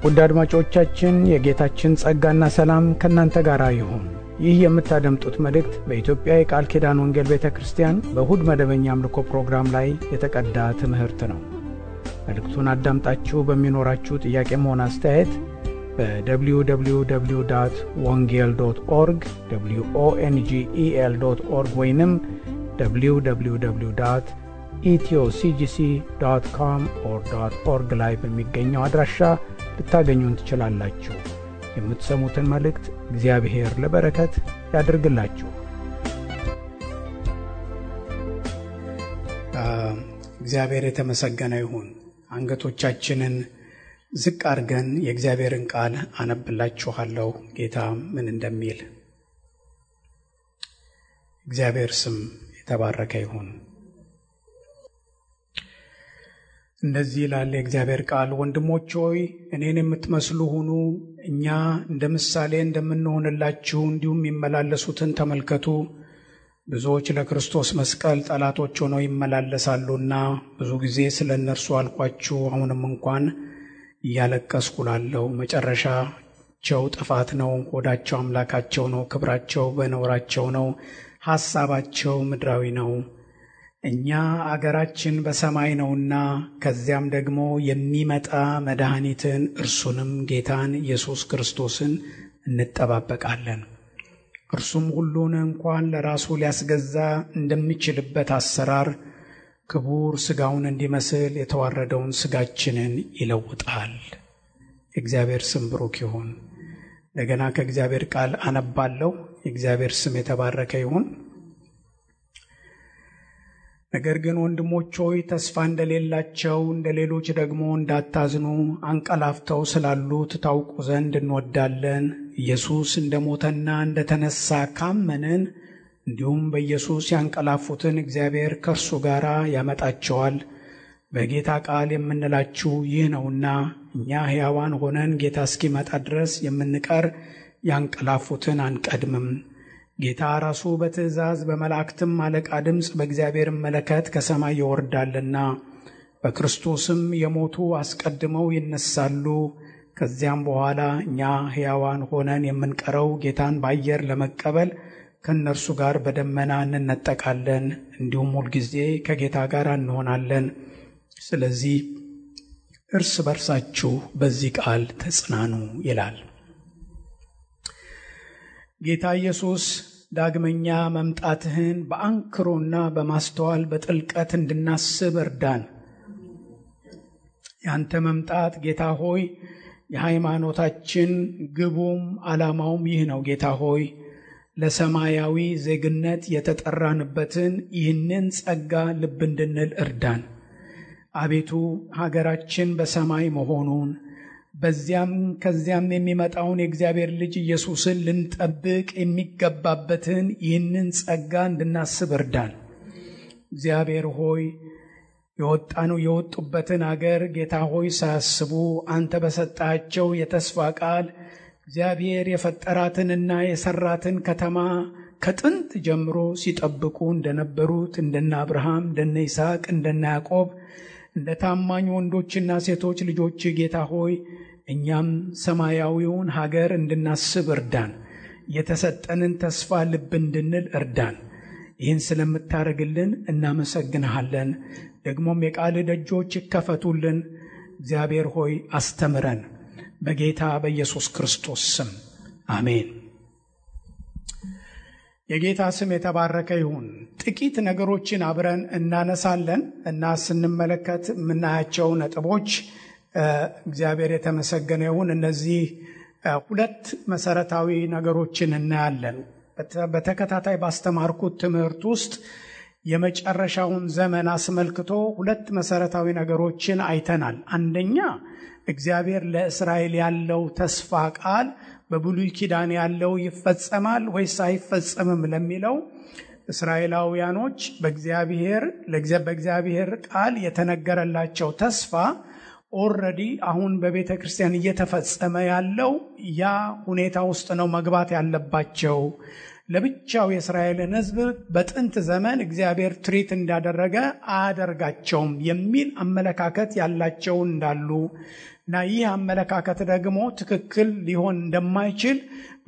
ውድ አድማጮቻችን የጌታችን ጸጋና ሰላም ከእናንተ ጋር ይሁን። ይህ የምታደምጡት መልእክት በኢትዮጵያ የቃል ኪዳን ወንጌል ቤተክርስቲያን በእሁድ መደበኛ አምልኮ ፕሮግራም ላይ የተቀዳ ትምህርት ነው። መልእክቱን አዳምጣችሁ በሚኖራችሁ ጥያቄም ሆነ አስተያየት በwww.wongel.org wongel.org ወይንም www.ethioCGC.com/org ላይ በሚገኘው አድራሻ ልታገኙን ትችላላችሁ። የምትሰሙትን መልእክት እግዚአብሔር ለበረከት ያድርግላችሁ። እግዚአብሔር የተመሰገነ ይሁን። አንገቶቻችንን ዝቅ አድርገን የእግዚአብሔርን ቃል አነብላችኋለሁ። ጌታ ምን እንደሚል እግዚአብሔር ስም የተባረከ ይሁን። እንደዚህ ይላል የእግዚአብሔር ቃል፣ ወንድሞች ሆይ እኔን የምትመስሉ ሁኑ፣ እኛ እንደ ምሳሌ እንደምንሆንላችሁ እንዲሁም ይመላለሱትን ተመልከቱ። ብዙዎች ለክርስቶስ መስቀል ጠላቶች ሆነው ይመላለሳሉና ብዙ ጊዜ ስለ እነርሱ አልኳችሁ። አሁንም እንኳን እያለቀስኩ እላለሁ። መጨረሻቸው ጥፋት ነው፣ ሆዳቸው አምላካቸው ነው፣ ክብራቸው በነውራቸው ነው፣ ሐሳባቸው ምድራዊ ነው። እኛ አገራችን በሰማይ ነውና ከዚያም ደግሞ የሚመጣ መድኃኒትን እርሱንም ጌታን ኢየሱስ ክርስቶስን እንጠባበቃለን። እርሱም ሁሉን እንኳን ለራሱ ሊያስገዛ እንደሚችልበት አሰራር ክቡር ሥጋውን እንዲመስል የተዋረደውን ሥጋችንን ይለውጣል። የእግዚአብሔር ስም ብሩክ ይሁን። እንደገና ከእግዚአብሔር ቃል አነባለሁ። የእግዚአብሔር ስም የተባረከ ይሁን። ነገር ግን ወንድሞች ሆይ ተስፋ እንደሌላቸው እንደ ሌሎች ደግሞ እንዳታዝኑ አንቀላፍተው ስላሉት ታውቁ ዘንድ እንወዳለን። ኢየሱስ እንደሞተና እንደተነሳ ካመንን እንዲሁም በኢየሱስ ያንቀላፉትን እግዚአብሔር ከእርሱ ጋር ያመጣቸዋል። በጌታ ቃል የምንላችሁ ይህ ነውና እኛ ሕያዋን ሆነን ጌታ እስኪመጣ ድረስ የምንቀር ያንቀላፉትን አንቀድምም። ጌታ ራሱ በትእዛዝ በመላእክትም አለቃ ድምፅ በእግዚአብሔር መለከት ከሰማይ ይወርዳልና በክርስቶስም የሞቱ አስቀድመው ይነሳሉ። ከዚያም በኋላ እኛ ሕያዋን ሆነን የምንቀረው ጌታን በአየር ለመቀበል ከእነርሱ ጋር በደመና እንነጠቃለን፣ እንዲሁም ሁልጊዜ ከጌታ ጋር እንሆናለን። ስለዚህ እርስ በርሳችሁ በዚህ ቃል ተጽናኑ ይላል። ጌታ ኢየሱስ ዳግመኛ መምጣትህን በአንክሮና በማስተዋል በጥልቀት እንድናስብ እርዳን። ያንተ መምጣት ጌታ ሆይ የሃይማኖታችን ግቡም ዓላማውም ይህ ነው። ጌታ ሆይ ለሰማያዊ ዜግነት የተጠራንበትን ይህንን ጸጋ ልብ እንድንል እርዳን። አቤቱ ሀገራችን በሰማይ መሆኑን በዚያም ከዚያም የሚመጣውን የእግዚአብሔር ልጅ ኢየሱስን ልንጠብቅ የሚገባበትን ይህንን ጸጋ እንድናስብ እርዳን። እግዚአብሔር ሆይ የወጡበትን አገር ጌታ ሆይ ሳያስቡ አንተ በሰጣቸው የተስፋ ቃል እግዚአብሔር የፈጠራትንና የሰራትን ከተማ ከጥንት ጀምሮ ሲጠብቁ እንደነበሩት እንደነ አብርሃም፣ እንደነ ይስሐቅ፣ እንደነ ያዕቆብ እንደ ታማኝ ወንዶችና ሴቶች ልጆች ጌታ ሆይ እኛም ሰማያዊውን ሀገር እንድናስብ እርዳን። የተሰጠንን ተስፋ ልብ እንድንል እርዳን። ይህን ስለምታደርግልን እናመሰግንሃለን። ደግሞም የቃል ደጆች ይከፈቱልን። እግዚአብሔር ሆይ አስተምረን። በጌታ በኢየሱስ ክርስቶስ ስም አሜን። የጌታ ስም የተባረከ ይሁን። ጥቂት ነገሮችን አብረን እናነሳለን እና ስንመለከት የምናያቸው ነጥቦች እግዚአብሔር የተመሰገነ ይሁን። እነዚህ ሁለት መሰረታዊ ነገሮችን እናያለን። በተከታታይ ባስተማርኩት ትምህርት ውስጥ የመጨረሻውን ዘመን አስመልክቶ ሁለት መሰረታዊ ነገሮችን አይተናል። አንደኛ እግዚአብሔር ለእስራኤል ያለው ተስፋ ቃል በብሉይ ኪዳን ያለው ይፈጸማል ወይስ አይፈጸምም ለሚለው እስራኤላውያኖች በእግዚአብሔር ቃል የተነገረላቸው ተስፋ ኦልሬዲ አሁን በቤተ ክርስቲያን እየተፈጸመ ያለው ያ ሁኔታ ውስጥ ነው መግባት ያለባቸው። ለብቻው የእስራኤልን ሕዝብ በጥንት ዘመን እግዚአብሔር ትሪት እንዳደረገ አያደርጋቸውም የሚል አመለካከት ያላቸው እንዳሉ እና ይህ አመለካከት ደግሞ ትክክል ሊሆን እንደማይችል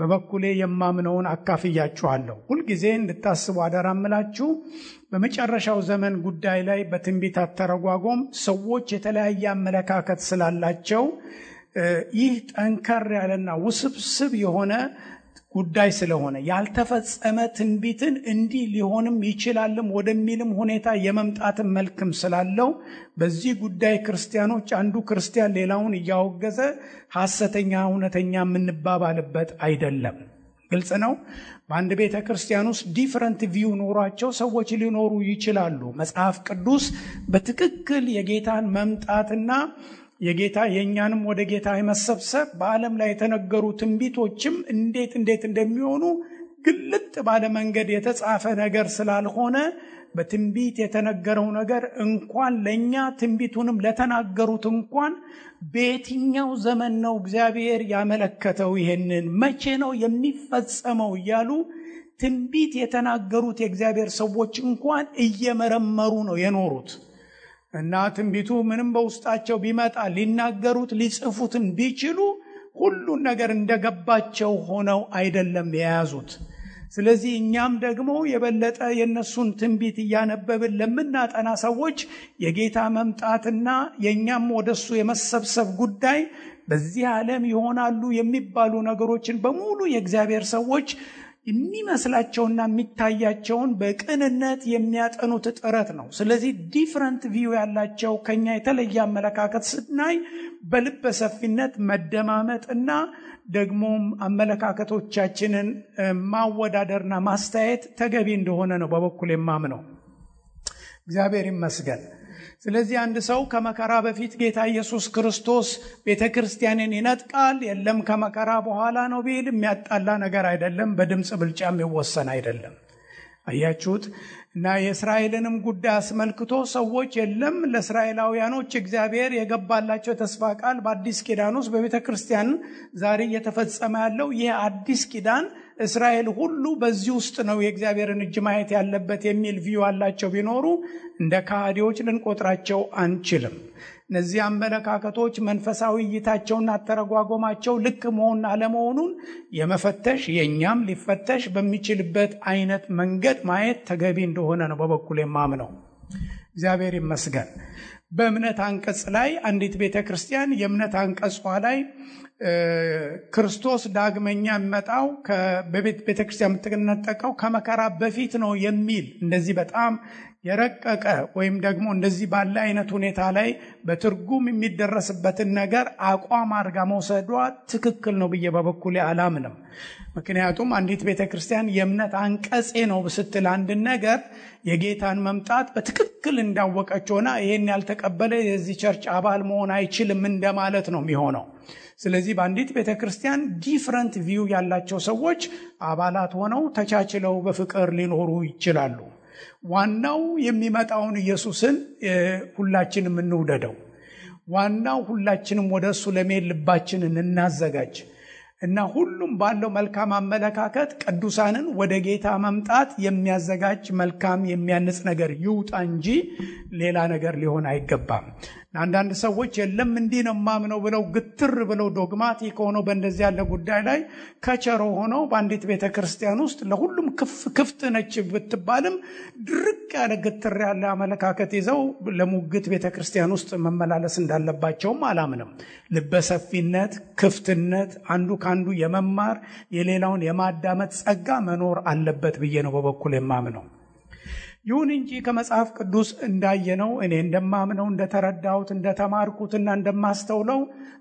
በበኩሌ የማምነውን አካፍያችኋለሁ። ሁልጊዜ እንድታስቡ አደራምላችሁ። በመጨረሻው ዘመን ጉዳይ ላይ በትንቢት አተረጓጎም ሰዎች የተለያየ አመለካከት ስላላቸው ይህ ጠንከር ያለና ውስብስብ የሆነ ጉዳይ ስለሆነ ያልተፈጸመ ትንቢትን እንዲህ ሊሆንም ይችላልም ወደሚልም ሁኔታ የመምጣትን መልክም ስላለው በዚህ ጉዳይ ክርስቲያኖች አንዱ ክርስቲያን ሌላውን እያወገዘ ሐሰተኛ እውነተኛ የምንባባልበት አይደለም። ግልጽ ነው። በአንድ ቤተ ክርስቲያን ውስጥ ዲፈረንት ቪው ኖሯቸው ሰዎች ሊኖሩ ይችላሉ። መጽሐፍ ቅዱስ በትክክል የጌታን መምጣትና የጌታ የኛንም ወደ ጌታ የመሰብሰብ በዓለም ላይ የተነገሩ ትንቢቶችም እንዴት እንደሚሆኑ ግልጥ ባለ መንገድ የተጻፈ ነገር ስላልሆነ በትንቢት የተነገረው ነገር እንኳን ለኛ ትንቢቱንም ለተናገሩት እንኳን በየትኛው ዘመን ነው እግዚአብሔር ያመለከተው፣ ይሄንን መቼ ነው የሚፈጸመው እያሉ ትንቢት የተናገሩት የእግዚአብሔር ሰዎች እንኳን እየመረመሩ ነው የኖሩት። እና ትንቢቱ ምንም በውስጣቸው ቢመጣ ሊናገሩት ሊጽፉትን ቢችሉ ሁሉን ነገር እንደገባቸው ሆነው አይደለም የያዙት። ስለዚህ እኛም ደግሞ የበለጠ የነሱን ትንቢት እያነበብን ለምናጠና ሰዎች የጌታ መምጣትና የኛም ወደሱ የመሰብሰብ ጉዳይ በዚህ ዓለም ይሆናሉ የሚባሉ ነገሮችን በሙሉ የእግዚአብሔር ሰዎች የሚመስላቸውና የሚታያቸውን በቅንነት የሚያጠኑት ጥረት ነው። ስለዚህ ዲፈረንት ቪው ያላቸው ከኛ የተለየ አመለካከት ስናይ በልበ ሰፊነት መደማመጥና ደግሞም አመለካከቶቻችንን ማወዳደርና ማስተያየት ተገቢ እንደሆነ ነው በበኩል የማምነው። እግዚአብሔር ይመስገን። ስለዚህ አንድ ሰው ከመከራ በፊት ጌታ ኢየሱስ ክርስቶስ ቤተክርስቲያንን ይነጥቃል፣ የለም ከመከራ በኋላ ነው ቢል የሚያጣላ ነገር አይደለም። በድምጽ ብልጫ የሚወሰን አይደለም። አያችሁት? እና የእስራኤልንም ጉዳይ አስመልክቶ ሰዎች የለም ለእስራኤላውያኖች እግዚአብሔር የገባላቸው ተስፋ ቃል በአዲስ ኪዳን ውስጥ በቤተክርስቲያን ዛሬ እየተፈጸመ ያለው ይህ አዲስ ኪዳን እስራኤል ሁሉ በዚህ ውስጥ ነው የእግዚአብሔርን እጅ ማየት ያለበት የሚል ቪው አላቸው ቢኖሩ እንደ ካህዲዎች ልንቆጥራቸው አንችልም። እነዚህ አመለካከቶች መንፈሳዊ እይታቸውና አተረጓጎማቸው ልክ መሆን አለመሆኑን የመፈተሽ የኛም ሊፈተሽ በሚችልበት አይነት መንገድ ማየት ተገቢ እንደሆነ ነው በበኩል የማምነው። እግዚአብሔር ይመስገን። በእምነት አንቀጽ ላይ አንዲት ቤተክርስቲያን የእምነት አንቀጿ ላይ ክርስቶስ ዳግመኛ የሚመጣው በቤተክርስቲያን የምትነጠቀው ከመከራ በፊት ነው የሚል እንደዚህ በጣም የረቀቀ ወይም ደግሞ እንደዚህ ባለ አይነት ሁኔታ ላይ በትርጉም የሚደረስበትን ነገር አቋም አድርጋ መውሰዷ ትክክል ነው ብዬ በበኩሌ አላምንም። ምክንያቱም አንዲት ቤተክርስቲያን የእምነት አንቀጼ ነው ስትል አንድ ነገር የጌታን መምጣት በትክክል እንዳወቀች ሆና ይሄን ያልተቀበለ የዚህ ቸርች አባል መሆን አይችልም እንደማለት ነው የሚሆነው። ስለዚህ በአንዲት ቤተክርስቲያን ዲፈረንት ቪው ያላቸው ሰዎች አባላት ሆነው ተቻችለው በፍቅር ሊኖሩ ይችላሉ። ዋናው የሚመጣውን ኢየሱስን ሁላችንም እንውደደው። ዋናው ሁላችንም ወደሱ ለመሄድ ልባችንን እናዘጋጅ እና ሁሉም ባለው መልካም አመለካከት ቅዱሳንን ወደ ጌታ መምጣት የሚያዘጋጅ መልካም የሚያንጽ ነገር ይውጣ እንጂ ሌላ ነገር ሊሆን አይገባም። አንዳንድ ሰዎች የለም እንዲህ ነው ማምነው ብለው ግትር ብለው ዶግማቲክ ሆነው በእንደዚህ ያለ ጉዳይ ላይ ከቸሮ ሆነው በአንዲት ቤተክርስቲያን ውስጥ ለሁሉም ክፍት ነች ብትባልም ድርቅ ያለ ግትር ያለ አመለካከት ይዘው ለሙግት ቤተክርስቲያን ውስጥ መመላለስ እንዳለባቸውም አላምንም። ልበሰፊነት፣ ክፍትነት፣ አንዱ ካንዱ የመማር የሌላውን የማዳመጥ ጸጋ መኖር አለበት ብዬ ነው በበኩል የማምነው። ይሁን እንጂ ከመጽሐፍ ቅዱስ እንዳየነው እኔ እንደማምነው እንደተረዳሁት እንደተማርኩትና እንደማስተውለው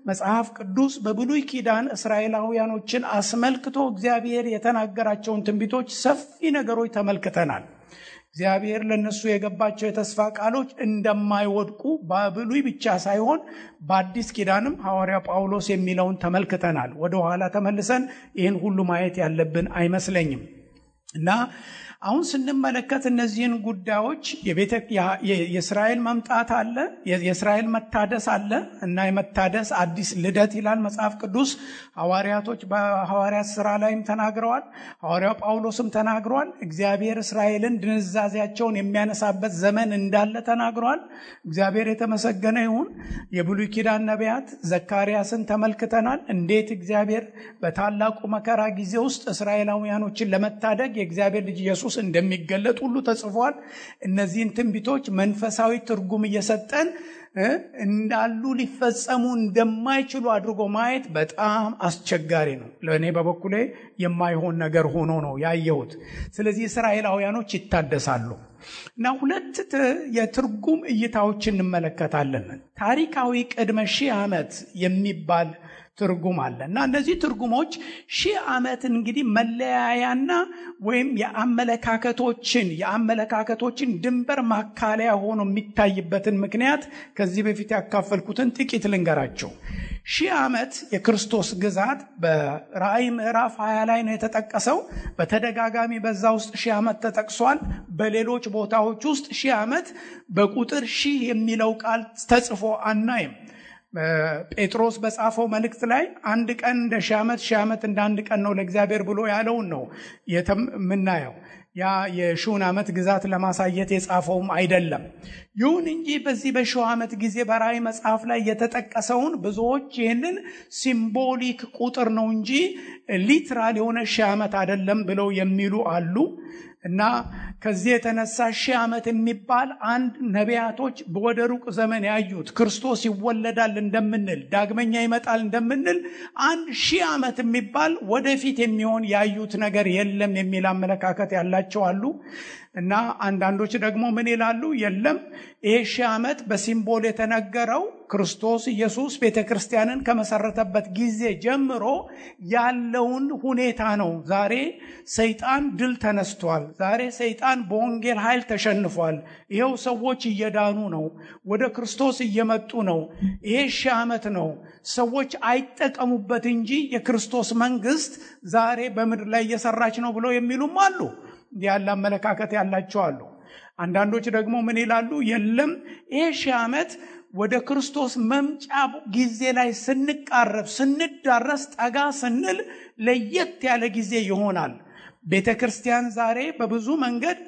መጽሐፍ ቅዱስ በብሉይ ኪዳን እስራኤላውያኖችን አስመልክቶ እግዚአብሔር የተናገራቸውን ትንቢቶች ሰፊ ነገሮች ተመልክተናል። እግዚአብሔር ለነሱ የገባቸው የተስፋ ቃሎች እንደማይወድቁ በብሉይ ብቻ ሳይሆን በአዲስ ኪዳንም ሐዋርያ ጳውሎስ የሚለውን ተመልክተናል። ወደ ኋላ ተመልሰን ይህን ሁሉ ማየት ያለብን አይመስለኝም እና አሁን ስንመለከት እነዚህን ጉዳዮች የእስራኤል መምጣት አለ፣ የእስራኤል መታደስ አለ እና የመታደስ አዲስ ልደት ይላል መጽሐፍ ቅዱስ። ሐዋርያቶች በሐዋርያት ሥራ ላይም ተናግረዋል። ሐዋርያው ጳውሎስም ተናግረዋል። እግዚአብሔር እስራኤልን ድንዛዜያቸውን የሚያነሳበት ዘመን እንዳለ ተናግረዋል። እግዚአብሔር የተመሰገነ ይሁን። የብሉይ ኪዳን ነቢያት ዘካርያስን ተመልክተናል። እንዴት እግዚአብሔር በታላቁ መከራ ጊዜ ውስጥ እስራኤላውያኖችን ለመታደግ የእግዚአብሔር ልጅ ኢየሱስ እንደሚገለጥ ሁሉ ተጽፏል። እነዚህን ትንቢቶች መንፈሳዊ ትርጉም እየሰጠን እንዳሉ ሊፈጸሙ እንደማይችሉ አድርጎ ማየት በጣም አስቸጋሪ ነው። ለእኔ በበኩሌ የማይሆን ነገር ሆኖ ነው ያየሁት። ስለዚህ እስራኤላውያኖች ይታደሳሉ እና ሁለት የትርጉም እይታዎች እንመለከታለን። ታሪካዊ ቅድመ 1000 ዓመት የሚባል ትርጉም አለ እና እነዚህ ትርጉሞች 1000 ዓመት እንግዲህ መለያያና ወይም የአመለካከቶችን ድንበር ማካለያ ሆኖ የሚታይበትን ምክንያት ከዚህ በፊት ያካፈልኩትን ጥቂት ልንገራቸው። 1000 ዓመት የክርስቶስ ግዛት በራእይ ምዕራፍ 20 ላይ ነው የተጠቀሰው። በተደጋጋሚ በዛ ውስጥ 1000 ዓመት ተጠቅሷል። በሌሎች ቦታዎች ውስጥ 1000 ዓመት በቁጥር 1000 የሚለው ቃል ተጽፎ አናይም። ጴጥሮስ በጻፈው መልእክት ላይ አንድ ቀን እንደ 1000 ዓመት 1000 ዓመት እንደ አንድ ቀን ነው ለእግዚአብሔር ብሎ ያለውን ነው የምናየው። ያ የ1000 ዓመት ግዛት ለማሳየት የጻፈውም አይደለም። ይሁን እንጂ በዚህ በ1000 ዓመት ጊዜ በራእይ መጽሐፍ ላይ የተጠቀሰውን ብዙዎች ይህንን ሲምቦሊክ ቁጥር ነው እንጂ ሊትራል የሆነ 1000 ዓመት አይደለም ብለው የሚሉ አሉ እና ከዚህ የተነሳ 1000 ዓመት የሚባል አንድ ነቢያቶች ወደ ሩቅ ዘመን ያዩት ክርስቶስ ይወለዳል እንደምንል ዳግመኛ ይመጣል እንደምንል 1000 ዓመት የሚባል ወደፊት የሚሆን ያዩት ነገር የለም የሚል አመለካከት ያላቸው አሉ። እና አንዳንዶች ደግሞ ምን ይላሉ? የለም ይሄ 1000 ዓመት በሲምቦል የተነገረው ክርስቶስ ኢየሱስ ቤተክርስቲያንን ከመሰረተበት ጊዜ ጀምሮ ያለውን ሁኔታ ነው። ዛሬ ሰይጣን ድል ተነስቷል። ዛሬ ሰይጣን በወንጌል ኃይል ተሸንፏል። ይሄው ሰዎች እየዳኑ ነው፣ ወደ ክርስቶስ እየመጡ ነው። ይሄ 1000 ዓመት ነው። ሰዎች አይጠቀሙበት እንጂ የክርስቶስ መንግስት ዛሬ በምድር ላይ እየሰራች ነው ብለው የሚሉም አሉ። ያለ አመለካከት ያላቸው አሉ። አንዳንዶች ደግሞ ምን ይላሉ? የለም ይሄ 1000 ዓመት ወደ ክርስቶስ መምጫ ጊዜ ላይ ስንቃረብ ስንዳረስ ጠጋ ስንል ለየት ያለ ጊዜ ይሆናል። ቤተክርስቲያን ዛሬ በብዙ መንገድ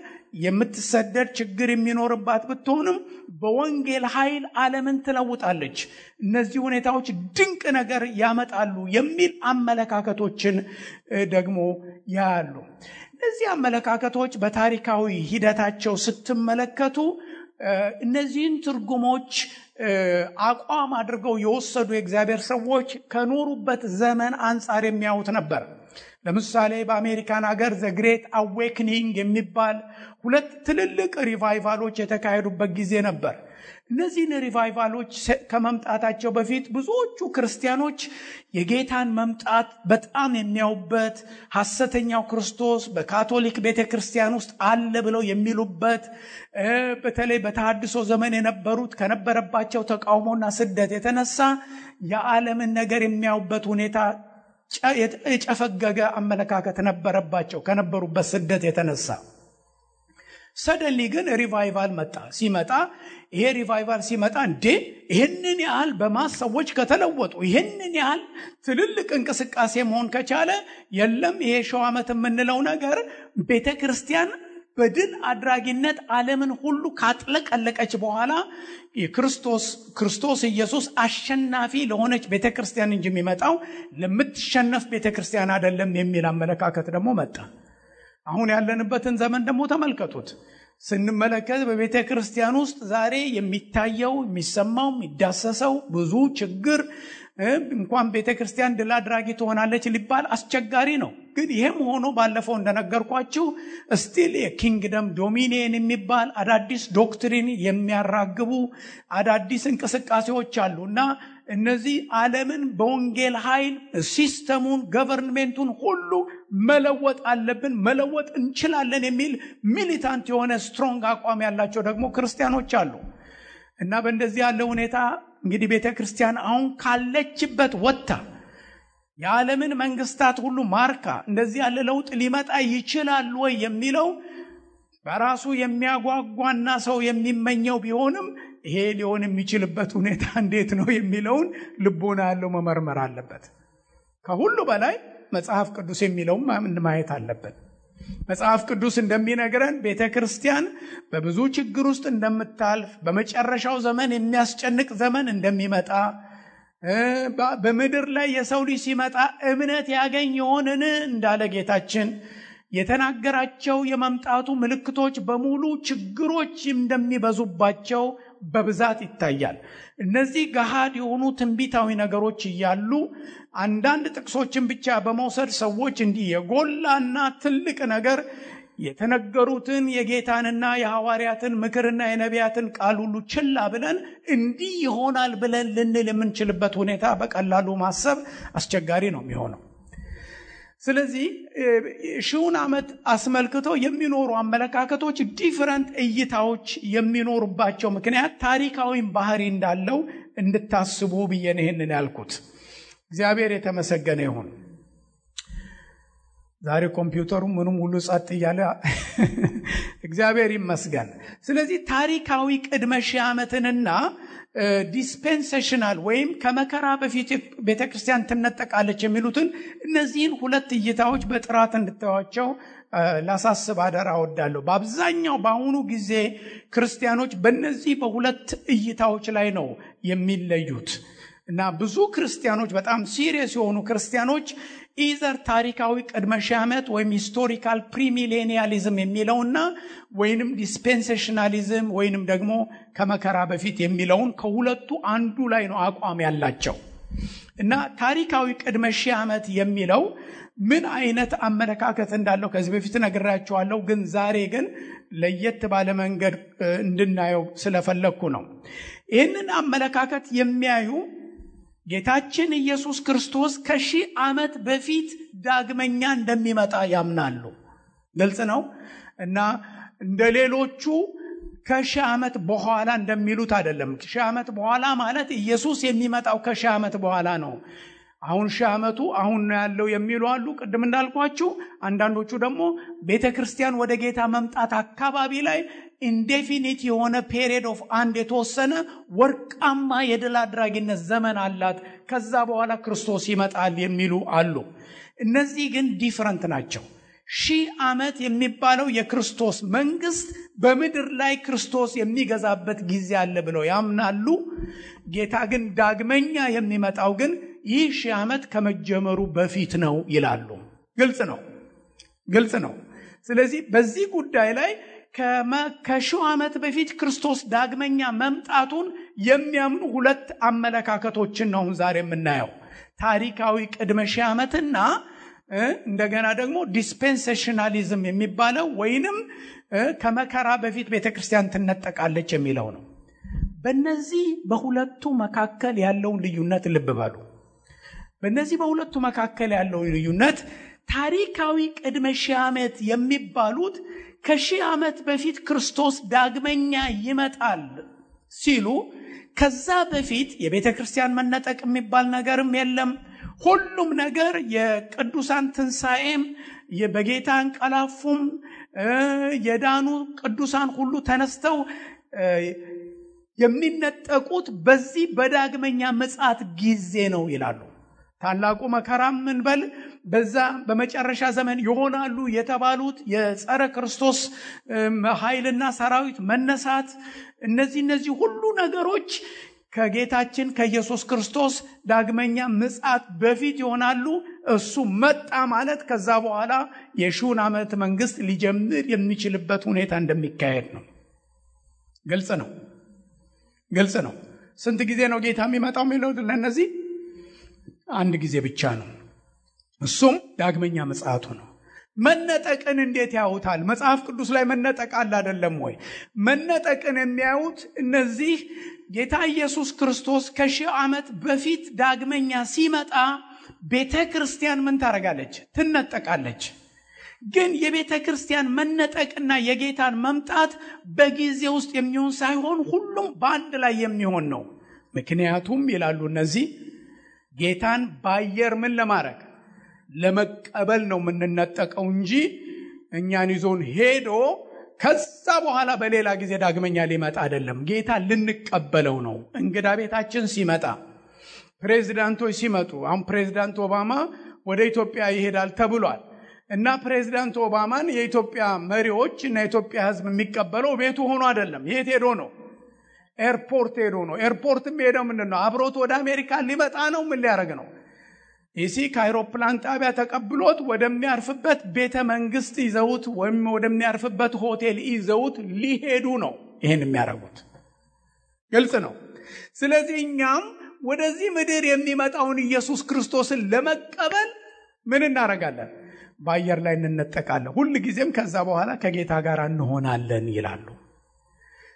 የምትሰደድ ችግር የሚኖርባት ብትሆንም በወንጌል ኃይል ዓለምን ትለውጣለች። እነዚህ ሁኔታዎች ድንቅ ነገር ያመጣሉ የሚል አመለካከቶችን ደግሞ ያሉ። እነዚህ አመለካከቶች በታሪካዊ ሂደታቸው ስትመለከቱ እነዚህን ትርጉሞች አቋም አድርገው የወሰዱ የእግዚአብሔር ሰዎች ከኖሩበት ዘመን አንጻር የሚያዩት ነበር። ለምሳሌ በአሜሪካን ሀገር ዘ ግሬት አዌክኒንግ የሚባል 2 ትልልቅ ሪቫይቫሎች የተካሄዱበት ጊዜ ነበር። እነዚህን ሪቫይቫሎች ከመምጣታቸው በፊት ብዙዎቹ ክርስቲያኖች የጌታን መምጣት በጣም የሚያዩበት፣ ሐሰተኛው ክርስቶስ በካቶሊክ ቤተክርስቲያን ውስጥ አለ ብለው የሚሉበት፣ በተለይ በተሐድሶ ዘመን የነበሩት ከነበረባቸው ተቃውሞና ስደት የተነሳ የዓለምን ነገር የሚያዩበት ሁኔታ የጨፈገገ አመለካከት ነበረባቸው ከነበሩበት ስደት የተነሳ። ሰደንሊ ግን ሪቫይቫል መጣ። ይሄ ሪቫይቫል ሲመጣ ይህንን ያህል በማስ ሰዎች ከተለወጡ፣ ይህንን ያህል ትልልቅ እንቅስቃሴ መሆን ከቻለ የለም ይሄ 1000 ዓመት የምንለው ነገር ቤተክርስቲያን በድል አድራጊነት ዓለምን ሁሉ ካጥለቀለቀች በኋላ ክርስቶስ ኢየሱስ አሸናፊ ለሆነች ቤተክርስቲያን እንጂ የሚመጣው ለምትሸነፍ ቤተክርስቲያን አይደለም የሚል አመለካከት ደግሞ መጣ። አሁን ያለንበትን ዘመን ደግሞ ተመልከቱት። ስንመለከት በቤተ ክርስቲያን ውስጥ ዛሬ የሚታየው የሚሰማው የሚዳሰሰው ብዙ ችግር እንኳን ቤተ ክርስቲያን ድል አድራጊ ትሆናለች ሊባል አስቸጋሪ ነው። ግን ይሄም ሆኖ ባለፈው እንደነገርኳችሁ ስቲል የኪንግደም ዶሚኒየን የሚባል አዳዲስ ዶክትሪን የሚያራግቡ አዳዲስ እንቅስቃሴዎች አሉና እነዚህ ዓለምን በወንጌል ኃይል ሲስተሙን ገቨርንሜንቱን ሁሉ መለወጥ አለብን፣ መለወጥ እንችላለን የሚል ሚሊታንት የሆነ ስትሮንግ አቋም ያላቸው ደግሞ ክርስቲያኖች አሉ። እና በእንደዚህ ያለ ሁኔታ እንግዲህ ቤተክርስቲያን አሁን ካለችበት ወጥታ የዓለምን መንግስታት ሁሉ ማርካ እንደዚህ ያለ ለውጥ ሊመጣ ይችላል ወይ የሚለው በራሱ የሚያጓጓና ሰው የሚመኘው ቢሆንም ይሄ ሊሆን የሚችልበት ሁኔታ እንዴት ነው የሚለውን ልቦና ያለው መመርመር አለበት። ከሁሉ በላይ መጽሐፍ ቅዱስ የሚለውን ማየት አለበት። መጽሐፍ ቅዱስ እንደሚነግረን ቤተክርስቲያን በብዙ ችግር ውስጥ እንደምታልፍ፣ በመጨረሻው ዘመን የሚያስጨንቅ ዘመን እንደሚመጣ፣ በምድር ላይ የሰው ልጅ ሲመጣ እምነት ያገኝ ይሆንን እንዳለ ጌታችን የተናገራቸው የመምጣቱ ምልክቶች በሙሉ ችግሮች እንደሚበዙባቸው በብዛት ይታያል። እነዚህ ገሃድ የሆኑ ትንቢታዊ ነገሮች እያሉ አንዳንድ ጥቅሶችን ብቻ በመውሰድ ሰዎች እንዲህ የጎላና ትልቅ ነገር የተነገሩትን የጌታንና የሐዋርያትን ምክርና የነቢያትን ቃል ሁሉ ችላ ብለን እንዲህ ይሆናል ብለን ልንል የምንችልበት ሁኔታ በቀላሉ ማሰብ አስቸጋሪ ነው የሚሆነው። ስለዚህ ሺውን ዓመት አስመልክቶ የሚኖሩ አመለካከቶች ዲፈረንት እይታዎች የሚኖሩባቸው ምክንያት ታሪካዊ ባህሪ እንዳለው እንድታስቡ ብዬ ነው ይሄንን ያልኩት። እግዚአብሔር የተመሰገነ ይሁን። ዛሬ ኮምፒውተሩ ምንም ሁሉ ጸጥ እያለ እግዚአብሔር ይመስገን። ስለዚህ ታሪካዊ ቅድመ ሺህ ዓመትንና ዲስፔንሴሽናል ወይም ከመከራ በፊት ቤተክርስቲያን ትነጠቃለች የሚሉትን እነዚህን ሁለት እይታዎች በጥራት እንድታዩዋቸው ላሳስብ አደራ እወዳለሁ። በአብዛኛው በአሁኑ ጊዜ ክርስቲያኖች በእነዚህ በሁለት እይታዎች ላይ ነው የሚለዩት እና ብዙ ክርስቲያኖች በጣም ሲሪየስ የሆኑ ክርስቲያኖች ኢዘር ታሪካዊ ቅድመ ሺህ ዓመት ወይም ሂስቶሪካል ፕሪሚሌኒያሊዝም የሚለውና ወይንም ዲስፔንሴሽናሊዝም ወይንም ደግሞ ከመከራ በፊት የሚለውን ከሁለቱ አንዱ ላይ ነው አቋም ያላቸው እና ታሪካዊ ቅድመ ሺህ ዓመት የሚለው ምን አይነት አመለካከት እንዳለው ከዚህ በፊት ነግራችኋለሁ። ግን ዛሬ ግን ለየት ባለ መንገድ እንድናየው ስለፈለኩ ነው። ይህንን አመለካከት የሚያዩ ጌታችን ኢየሱስ ክርስቶስ ከሺህ ዓመት በፊት ዳግመኛ እንደሚመጣ ያምናሉ። ግልጽ ነው እና እንደሌሎቹ ከሺህ ዓመት በኋላ እንደሚሉት አይደለም። ከሺህ ዓመት በኋላ ማለት ኢየሱስ የሚመጣው ከሺህ ዓመት በኋላ ነው። አሁን ሺህ ዓመቱ አሁን ነው ያለው የሚሉ አሉ። ቅድም እንዳልኳችሁ አንዳንዶቹ ደግሞ ቤተክርስቲያን ወደ ጌታ መምጣት አካባቢ ላይ ኢንዴፊኒት የሆነ ፔሪየድ ኦፍ አንድ የተወሰነ ወርቃማ የድል አድራጊነት ዘመን አላት፣ ከዛ በኋላ ክርስቶስ ይመጣል የሚሉ አሉ። እነዚህ ግን ዲፈረንት ናቸው። ሺህ ዓመት የሚባለው የክርስቶስ መንግስት በምድር ላይ ክርስቶስ የሚገዛበት ጊዜ አለ ብለው ያምናሉ። ጌታ ግን ዳግመኛ የሚመጣው ግን ይህ ሺህ ዓመት ከመጀመሩ በፊት ነው ይላሉ። ግልጽ ነው። ስለዚህ በዚህ ጉዳይ ላይ ከሺህ ዓመት በፊት ክርስቶስ ዳግመኛ መምጣቱን የሚያምኑ ሁለት አመለካከቶችን ነው ዛሬ የምናየው። ታሪካዊ ቅድመ ሺህ ዓመትና እንደገና ደግሞ ዲስፔንሴሽናሊዝም የሚባለው ወይንም ከመከራ በፊት ቤተክርስቲያን ትነጠቃለች የሚለው ነው። በእነዚህ በሁለቱ መካከል ያለውን ልዩነት ልብ በሉ። በእነዚህ በሁለቱ መካከል ያለው ልዩነት ታሪካዊ ቅድመ ሺህ ዓመት የሚባሉት ከሺህ ዓመት በፊት ክርስቶስ ዳግመኛ ይመጣል ሲሉ ከዛ በፊት የቤተ ክርስቲያን መነጠቅ የሚባል ነገርም የለም። ሁሉም ነገር የቅዱሳን ትንሣኤም በጌታ እንቀላፉም የዳኑ ቅዱሳን ሁሉ ተነስተው የሚነጠቁት በዚህ በዳግመኛ ምጽአት ጊዜ ነው ይላሉ። ታላቁ መከራም እንበል በዛ በመጨረሻ ዘመን ይሆናሉ የተባሉት የጸረ ክርስቶስ ኃይልና ሰራዊት መነሳት እነዚህ ሁሉ ነገሮች ከጌታችን ከኢየሱስ ክርስቶስ ዳግመኛ ምጽአት በፊት ይሆናሉ። እሱ መጣ ማለት ከዛ በኋላ የሺውን ዓመት መንግስት ሊጀምር የሚችልበት ሁኔታ እንደሚካሄድ ነው። ግልጽ ነው። ስንት ጊዜ ነው ጌታ የሚመጣው የሚለው ለነዚህ አንድ ጊዜ ብቻ ነው። እሱም ዳግመኛ ምጽአቱ ነው። መነጠቅን እንዴት ያዩታል? መጽሐፍ ቅዱስ ላይ መነጠቅ አለ አይደለም ወይ? መነጠቅን የሚያዩት እነዚህ ጌታ ኢየሱስ ክርስቶስ ከሺህ ዓመት በፊት ዳግመኛ ሲመጣ ቤተ ክርስቲያን ምን ታረጋለች? ትነጠቃለች። ግን የቤተ ክርስቲያን መነጠቅና የጌታን መምጣት በጊዜ ውስጥ የሚሆን ሳይሆን ሁሉም በአንድ ላይ የሚሆን ነው። ምክንያቱም ይላሉ እነዚህ ጌታን ባየር ምን ለማድረግ ለመቀበል ነው የምንነጠቀው እንጂ እኛን ይዞን ሄዶ ከዛ በኋላ በሌላ ጊዜ ዳግመኛ ሊመጣ አይደለም። ጌታ ልንቀበለው ነው። እንግዳ ቤታችን ሲመጣ፣ ፕሬዝዳንቶች ሲመጡ፣ አሁን ፕሬዝዳንት ኦባማ ወደ ኢትዮጵያ ይሄዳል ተብሏል እና ፕሬዝዳንት ኦባማን የኢትዮጵያ መሪዎች እና የኢትዮጵያ ሕዝብ የሚቀበለው ቤቱ ሆኖ አይደለም። የት ሄዶ ነው? ኤርፖርት ሄዶ ነው። ኤርፖርትም ሄደው ምንድነው? አብሮት ወደ አሜሪካ ሊመጣ ነው። ምን ሊያደርግ ነው? ከአይሮፕላን ጣቢያ ተቀብሎት ወደሚያርፍበት ቤተ መንግስት ይዘውት ወይም ወደሚያርፍበት ሆቴል ይዘውት ሊሄዱ ነው ይሄን የሚያደርጉት። ግልጽ ነው። ስለዚህ እኛም ወደዚህ ምድር የሚመጣውን ኢየሱስ ክርስቶስን ለመቀበል ምን እናደርጋለን? በአየር ላይ እንነጠቃለን። ሁል ጊዜም ከዛ በኋላ ከጌታ ጋር እንሆናለን ይላሉ።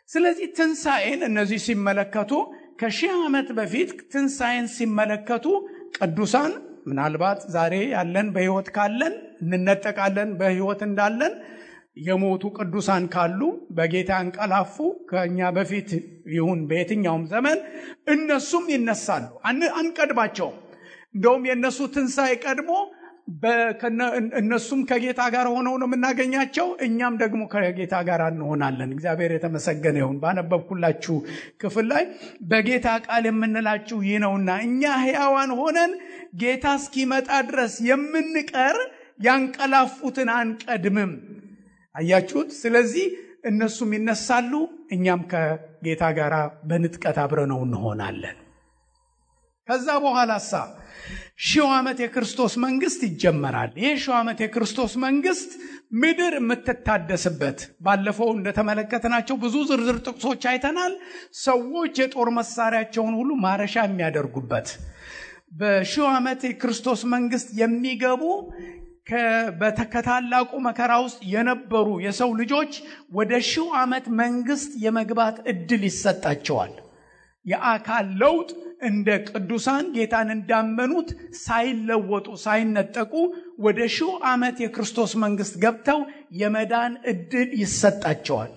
ስለዚህ ትንሣኤን እነዚህ ሲመለከቱ ከ1000 ዓመት በፊት ትንሣኤን ሲመለከቱ ቅዱሳን ምናልባት ዛሬ ያለን በሕይወት ካለን እንነጠቃለን። በሕይወት እንዳለን የሞቱ ቅዱሳን ካሉ በጌታ እንቀላፉ ከኛ በፊት ይሁን በየትኛውም ዘመን እነሱም ይነሳሉ። አንቀድማቸውም። እንደውም የነሱ ትንሣኤ ቀድሞ እነሱም ከጌታ ጋር ሆነው ነው የምናገኛቸው። እኛም ደግሞ ከጌታ ጋር እንሆናለን። እግዚአብሔር የተመሰገነ ይሁን። ባነበብኩላችሁ ክፍል ላይ በጌታ ቃል የምንላችሁ ይህ ነውና እኛ ሕያዋን ሆነን ጌታ እስኪመጣ ድረስ የምንቀር ያንቀላፉትን አንቀድምም። አያችሁት? ስለዚህ እነሱም ይነሳሉ፣ እኛም ከጌታ ጋር በንጥቀት አብረነው እንሆናለን። ከዛ በኋላሳ 1000 ዓመት የክርስቶስ መንግስት ይጀመራል። ይህ 1000 ዓመት የክርስቶስ መንግስት ምድር የምትታደስበት፣ ባለፈው እንደተመለከትናቸው ብዙ ዝርዝር ጥቅሶች አይተናል። ሰዎች የጦር መሳሪያቸውን ሁሉ ማረሻ የሚያደርጉበት በ1000 ዓመት የክርስቶስ መንግስት የሚገቡ ከታላቁ መከራ ውስጥ የነበሩ የሰው ልጆች ወደ 1000 ዓመት መንግስት የመግባት እድል ይሰጣቸዋል። የአካል ለውጥ እንደ ቅዱሳን ጌታን እንዳመኑት ሳይለወጡ ሳይነጠቁ ወደ 1000 ዓመት የክርስቶስ መንግስት ገብተው የመዳን እድል ይሰጣቸዋል።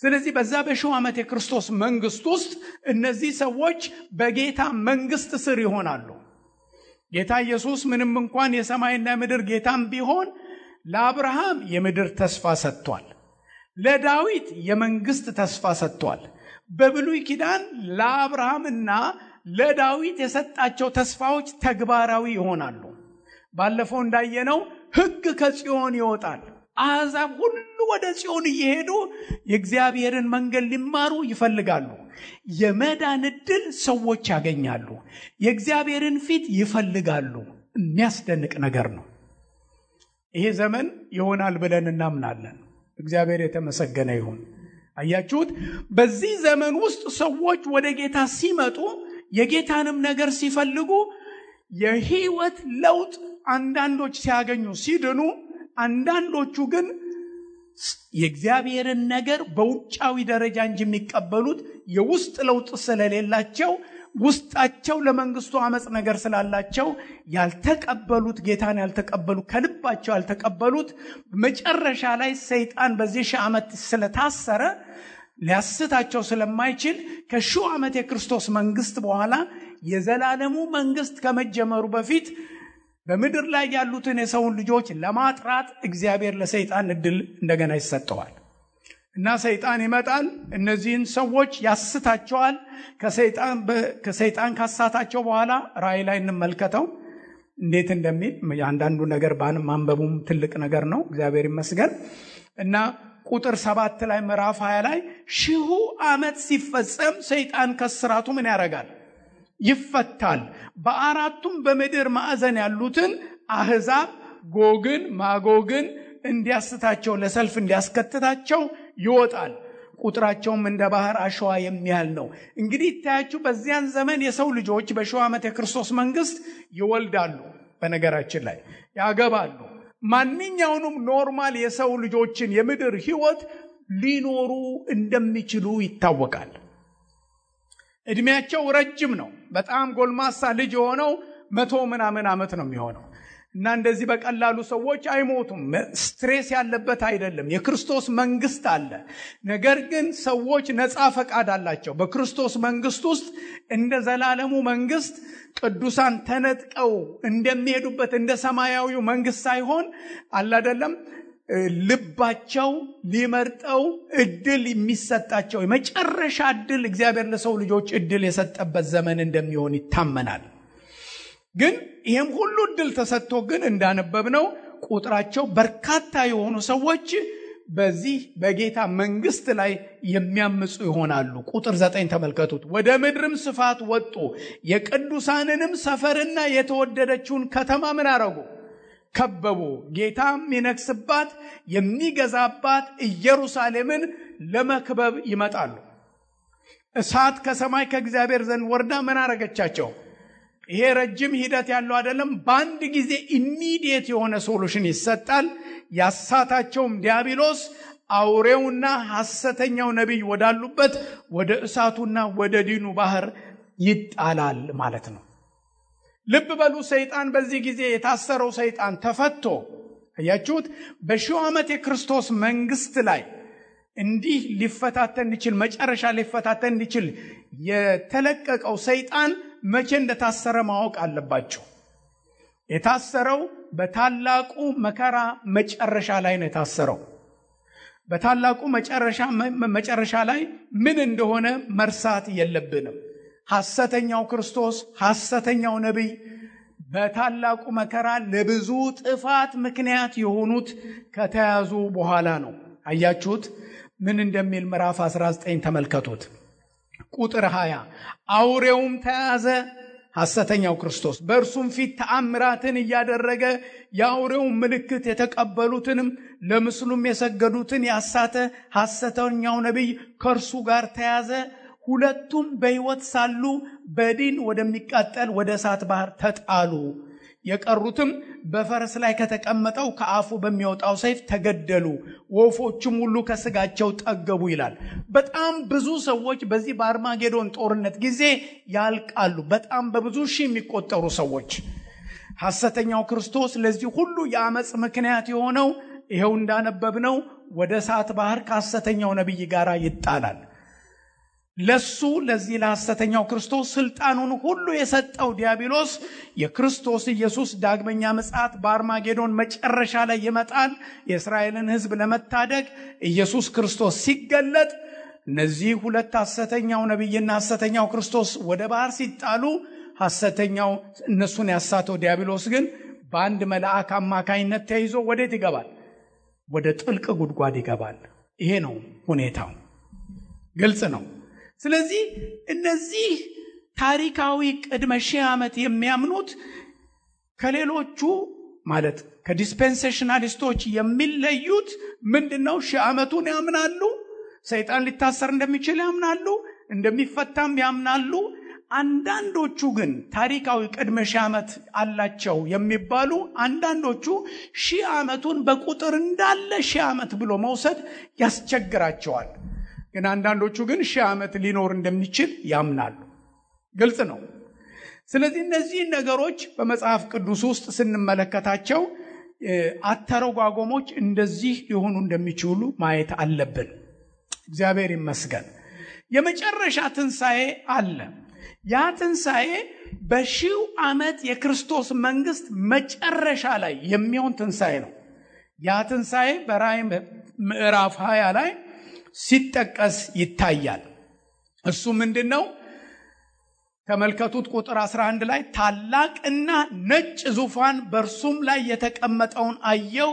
ስለዚህ በዛ በ1000 ዓመት የክርስቶስ መንግስት ውስጥ እነዚህ ሰዎች በጌታ መንግስት ስር ይሆናሉ። ጌታ ኢየሱስ ምንም እንኳን የሰማይና ምድር ጌታም ቢሆን ለአብርሃም የምድር ተስፋ ሰጥቷል። ለዳዊት የመንግስት ተስፋ ሰጥቷል። በብሉይ ኪዳን ለአብርሃምና ለዳዊት የሰጣቸው ተስፋዎች ተግባራዊ ይሆናሉ። ባለፈው እንዳየነው ሕግ ከጽዮን ይወጣል። አሕዛብ ሁሉ ወደ ጽዮን እየሄዱ የእግዚአብሔርን መንገድ ሊማሩ ይፈልጋሉ። የመዳን ዕድል ሰዎች ያገኛሉ። የእግዚአብሔርን ፊት ይፈልጋሉ። የሚያስደንቅ ነገር ነው። ይሄ ዘመን ይሆናል ብለን እናምናለን። እግዚአብሔር የተመሰገነ ይሁን። አያችሁት? በዚህ ዘመን ውስጥ ሰዎች ወደ ጌታ ሲመጡ የጌታንም ነገር ሲፈልጉ የህይወት ለውጥ አንዳንዶች ሲያገኙ ሲድኑ፣ አንዳንዶቹ ግን የእግዚአብሔርን ነገር በውጫዊ ደረጃ እንጂ የሚቀበሉት የውስጥ ለውጥ ስለሌላቸው፣ ውስጣቸው ለመንግስቱ አመጽ ነገር ስላላቸው ያልተቀበሉት ጌታን ያልተቀበሉ ከልባቸው ያልተቀበሉት መጨረሻ ላይ ሰይጣን በዚህ 1000 ዓመት ስለታሰረ ሊያስታቸው ስለማይችል ከ1000 ዓመት የክርስቶስ መንግስት በኋላ የዘላለሙ መንግስት ከመጀመሩ በፊት በምድር ላይ ያሉትን የሰውን ልጆች ለማጥራት እግዚአብሔር ለሰይጣን እድል እንደገና ይሰጠዋል እና ሰይጣን ይመጣል። እነዚህን ሰዎች ያስታቸዋል። ከሰይጣን ካሳታቸው በኋላ ራእይ ላይ እንመልከተው እንዴት እንደሚል። አንዳንዱ ነገር ማንበቡም ትልቅ ነገር ነው። እግዚአብሔር ይመስገን። እና ቁጥር 7 ላይ ምዕራፍ 20 ላይ 1000 ዓመት ሲፈጸም ሰይጣን ከስራቱ ምን ያደርጋል? ይፈታል። በአራቱም በምድር ማዕዘን ያሉትን አሕዛብ ጎግን ማጎግን እንዲያስታቸው ለሰልፍ እንዲያስከትታቸው ይወጣል። ቁጥራቸውም እንደ ባህር አሸዋ የሚያህል ነው። እንግዲህ ታያችሁ በዚያን ዘመን የሰው ልጆች በ1000 ዓመት የክርስቶስ መንግስት ይወልዳሉ። በነገራችን ላይ ያገባሉ። ማንኛውንም ኖርማል የሰው ልጆችን የምድር ህይወት ሊኖሩ እንደሚችሉ ይታወቃል። እድሜያቸው ረጅም ነው። በጣም ጎልማሳ ልጅ የሆነው 100 ምናምን ዓመት ነው የሚሆነው እና እንደዚህ በቀላሉ ሰዎች አይሞቱም። ስትሬስ ያለበት አይደለም። የክርስቶስ መንግስት አለ። ነገር ግን ሰዎች ነፃ ፈቃድ አላቸው። በክርስቶስ መንግስት ውስጥ እንደ ዘላለሙ መንግስት ቅዱሳን ተነጥቀው እንደሚሄዱበት እንደ ሰማያዊው መንግስት ሳይሆን አለ አይደለም ልባቸው ሊመርጠው እድል የሚሰጣቸው የመጨረሻ እድል እግዚአብሔር ለሰው ልጆች እድል የሰጠበት ዘመን እንደሚሆን ይታመናል። ግን ይሄም ሁሉ እድል ተሰጥቶ ግን እንዳነበብነው ቁጥራቸው በርካታ የሆኑ ሰዎች በዚህ በጌታ መንግስት ላይ የሚያምፁ ይሆናሉ። ቁጥር 9 ተመልከቱት። ወደ ምድርም ስፋት ወጡ፣ የቅዱሳንንም ሰፈርና የተወደደችውን ከተማ ምን አረጉ? ከበቡ። ጌታም የሚነግስባት የሚገዛባት ኢየሩሳሌምን ለመክበብ ይመጣሉ። እሳት ከሰማይ ከእግዚአብሔር ዘንድ ወርዳ ምን አረገቻቸው? ይሄ ረጅም ሂደት ያለው አይደለም። በአንድ ጊዜ ኢሚዲየት የሆነ ሶሉሽን ይሰጣል። ያሳታቸውም ዲያብሎስ አውሬውና ሐሰተኛው ነቢይ ወዳሉበት ወደ እሳቱና ወደ ዲኑ ባህር ይጣላል ማለት ነው። ልብ በሉ። ሰይጣን በዚህ ጊዜ የታሰረው ሰይጣን ተፈቶ አያችሁት። በሺው ዓመት የክርስቶስ መንግስት ላይ እንዲህ ሊፈታተን ይችል መጨረሻ ሊፈታተን ይችል የተለቀቀው ሰይጣን መቼ እንደታሰረ ማወቅ አለባቸው። የታሰረው በታላቁ መከራ መጨረሻ ላይ ነው የታሰረው። በታላቁ መጨረሻ ላይ ምን እንደሆነ መርሳት የለብንም። ሐሰተኛው ክርስቶስ፣ ሐሰተኛው ነቢይ በታላቁ መከራ ለብዙ ጥፋት ምክንያት የሆኑት ከተያዙ በኋላ ነው። አያችሁት ምን እንደሚል ምዕራፍ 19 ተመልከቱት። ቁጥር 20 አውሬውም ተያዘ፣ ሐሰተኛው ክርስቶስ በእርሱም ፊት ተአምራትን እያደረገ የአውሬውን ምልክት የተቀበሉትንም ለምስሉም የሰገዱትን ያሳተ ሐሰተኛው ነቢይ ከእርሱ ጋር ተያዘ። ሁለቱም በሕይወት ሳሉ በዲን ወደሚቃጠል ወደ እሳት ባህር ተጣሉ። የቀሩትም በፈረስ ላይ ከተቀመጠው ከአፉ በሚወጣው ሰይፍ ተገደሉ። ወፎችም ሁሉ ከስጋቸው ጠገቡ ይላል። በጣም ብዙ ሰዎች በዚህ በአርማጌዶን ጦርነት ጊዜ ያልቃሉ። በጣም በብዙ ሺህ የሚቆጠሩ ሰዎች። ሐሰተኛው ክርስቶስ ለዚህ ሁሉ የአመጽ ምክንያት የሆነው ይሄው እንዳነበብነው ወደ እሳት ባህር ከሐሰተኛው ነቢይ ጋር ይጣላል። ለዚህ ለሐሰተኛው ክርስቶስ ስልጣኑን ሁሉ የሰጠው ዲያብሎስ የክርስቶስ ኢየሱስ ዳግመኛ ምጽአት በአርማጌዶን መጨረሻ ላይ ይመጣል። የእስራኤልን ሕዝብ ለመታደግ ኢየሱስ ክርስቶስ ሲገለጥ እነዚህ ሁለት ሐሰተኛው ነቢይና ሐሰተኛው ክርስቶስ ወደ ባህር ሲጣሉ ሐሰተኛው እነሱን ያሳተው ዲያብሎስ ግን በአንድ መልአክ አማካይነት ተይዞ ወዴት ይገባል? ወደ ጥልቅ ጉድጓድ ይገባል። ይሄ ነው ሁኔታው። ግልጽ ነው። ስለዚህ እነዚህ ታሪካዊ ቅድመ ሺህ ዓመት የሚያምኑት ከሌሎቹ ማለት ከዲስፔንሴሽናሊስቶች የሚለዩት ምንድነው? ሺህ ዓመቱን ያምናሉ። ሰይጣን ሊታሰር እንደሚችል ያምናሉ፣ እንደሚፈታም ያምናሉ። አንዳንዶቹ ግን ታሪካዊ ቅድመ ሺህ ዓመት አላቸው የሚባሉ አንዳንዶቹ ሺህ ዓመቱን በቁጥር እንዳለ ሺህ ዓመት ብሎ መውሰድ ያስቸግራቸዋል። ግን አንዳንዶቹ ግን ሺህ ዓመት ሊኖር እንደሚችል ያምናሉ። ግልጽ ነው። ስለዚህ እነዚህ ነገሮች በመጽሐፍ ቅዱስ ውስጥ ስንመለከታቸው አተረጓጎሞች እንደዚህ ሊሆኑ እንደሚችሉ ማየት አለብን። እግዚአብሔር ይመስገን። የመጨረሻ ትንሣኤ አለ። ያ ትንሣኤ በሺው ዓመት የክርስቶስ መንግስት መጨረሻ ላይ የሚሆን ትንሣኤ ነው። ያ ትንሣኤ በራእይ ምዕራፍ 20 ላይ ሲጠቀስ ይታያል። እሱ ምንድነው? ተመልከቱት። ቁጥር 11 ላይ ታላቅና ነጭ ዙፋን በእርሱም ላይ የተቀመጠውን አየው።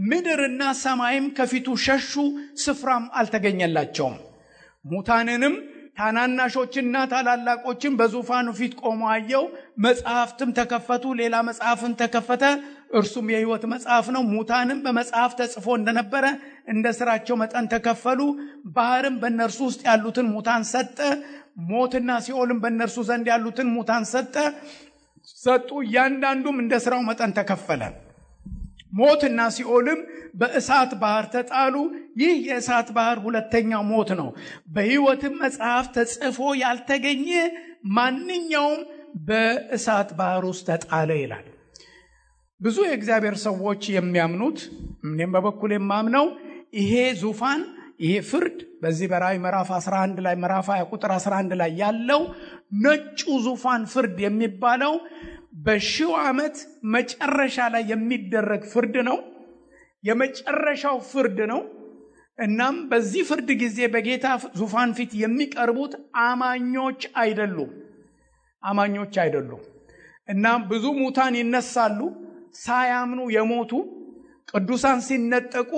ምድርና ሰማይም ከፊቱ ሸሹ፣ ስፍራም አልተገኘላቸውም። ሙታንንም ታናናሾችና ታላላቆችን በዙፋኑ ፊት ቆመው አየው። መጽሐፍትም ተከፈቱ፣ ሌላ መጽሐፍም ተከፈተ፣ እርሱም የሕይወት መጽሐፍ ነው። ሙታንም በመጽሐፍ ተጽፎ እንደነበረ እንደ ስራቸው መጠን ተከፈሉ። ባህርም በእነርሱ ውስጥ ያሉትን ሙታን ሰጠ፣ ሞትና ሲኦልም በእነርሱ ዘንድ ያሉትን ሙታን ሰጡ። እያንዳንዱም እንደ ስራው መጠን ተከፈለ። ሞትና ሲኦልም በእሳት ባህር ተጣሉ። ይህ የእሳት ባህር ሁለተኛው ሞት ነው። በሕይወትም መጽሐፍ ተጽፎ ያልተገኘ ማንኛውም በእሳት ባህር ውስጥ ተጣለ ይላል። ብዙ የእግዚአብሔር ሰዎች የሚያምኑት፣ እኔም በበኩል የማምነው ይሄ ዙፋን ይሄ ፍርድ በዚህ በራእይ ምዕራፍ 11 ላይ ምዕራፍ 20 ቁጥር 11 ላይ ያለው ነጩ ዙፋን ፍርድ የሚባለው በሺው ዓመት መጨረሻ ላይ የሚደረግ ፍርድ ነው። የመጨረሻው ፍርድ ነው። እናም በዚህ ፍርድ ጊዜ በጌታ ዙፋን ፊት የሚቀርቡት አማኞች አይደሉም። እናም ብዙ ሙታን ይነሳሉ። ሳያምኑ የሞቱ ቅዱሳን ሲነጠቁ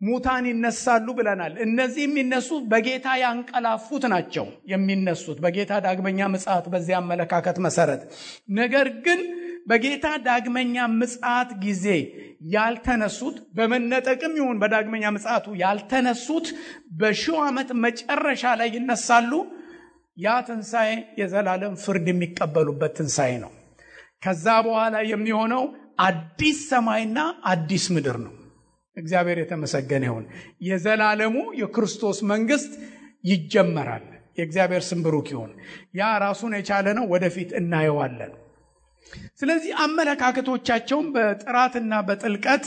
ሙታን ይነሳሉ ብለናል። እነዚህ የሚነሱት በጌታ ያንቀላፉት ናቸው የሚነሱት በጌታ ዳግመኛ ምጽአት በዚያ አመለካከት መሰረት። ነገር ግን በጌታ ዳግመኛ ምጽአት ጊዜ ያልተነሱት በመነጠቅም ይሁን በዳግመኛ ምጽአቱ ያልተነሱት በሺው ዓመት መጨረሻ ላይ ይነሳሉ። ያ ትንሣኤ የዘላለም ፍርድ የሚቀበሉበት ትንሣኤ ነው። ከዛ በኋላ የሚሆነው አዲስ ሰማይና አዲስ ምድር ነው። እግዚአብሔር የተመሰገነ ይሁን። የዘላለሙ የክርስቶስ መንግስት ይጀመራል። የእግዚአብሔር ስም ብሩክ ይሁን። ያ ራሱን የቻለ ነው። ወደፊት እናየዋለን። ስለዚህ አመለካከቶቻቸውን በጥራትና በጥልቀት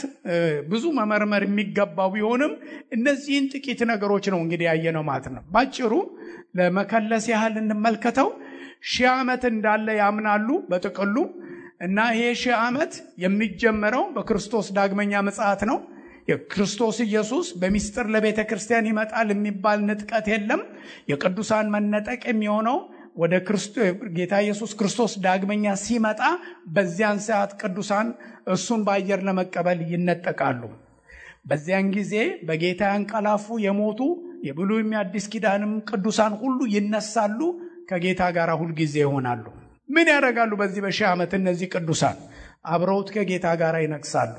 ብዙ መመርመር የሚገባው ቢሆንም እነዚህን ጥቂት ነገሮች ነው እንግዲህ ያየነው ማለት ነው። ባጭሩ ለመከለስ ያህል እንመልከተው። 1000 ዓመት እንዳለ ያምናሉ በጥቅሉ እና ይሄ 1000 ዓመት የሚጀመረው በክርስቶስ ዳግመኛ ምጽአት ነው። የክርስቶስ ኢየሱስ በሚስጥር ለቤተ ክርስቲያን ይመጣል የሚባል ንጥቀት የለም። የቅዱሳን መነጠቅ የሚሆነው ወደ ጌታ ኢየሱስ ክርስቶስ ዳግመኛ ሲመጣ በዚያን ሰዓት ቅዱሳን እሱን በአየር ለመቀበል ይነጠቃሉ። በዚያን ጊዜ በጌታ ያንቀላፉ የሞቱ የብሉይም የአዲስ ኪዳንም ቅዱሳን ሁሉ ይነሳሉ፣ ከጌታ ጋር ሁሉ ጊዜ ይሆናሉ። ምን ያደርጋሉ? በዚህ በ1000 ዓመት እነዚህ ቅዱሳን አብረውት ከጌታ ጋር ይነግሳሉ።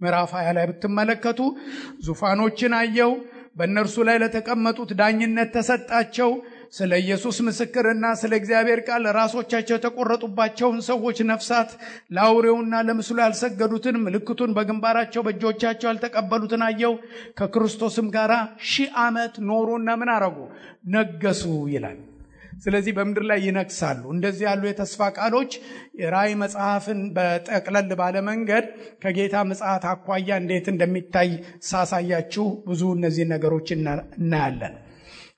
ምዕራፍ 20 ላይ ብትመለከቱ ዙፋኖችን አየው፣ በእነርሱ ላይ ለተቀመጡት ዳኝነት ተሰጣቸው። ስለ ኢየሱስ ምስክርና ስለ እግዚአብሔር ቃል ራሶቻቸው የተቆረጡባቸውን ሰዎች ነፍሳት፣ ለአውሬውና ለምስሉ ያልሰገዱትን ምልክቱን በግንባራቸው በእጆቻቸው ያልተቀበሉትን አየው። ከክርስቶስም ጋር 1000 ዓመት ኖሩና ምን አረጉ? ነገሱ ይላል። ስለዚህ በምድር ላይ ይነግሳሉ። እንደዚህ ያሉ የተስፋ ቃሎች ራእይ መጽሐፍን በጠቅለል ባለ መንገድ ከጌታ ምጽአት አኳያ እንዴት እንደሚታይ ሳሳያችሁ ብዙ እነዚህ ነገሮች እናያለን።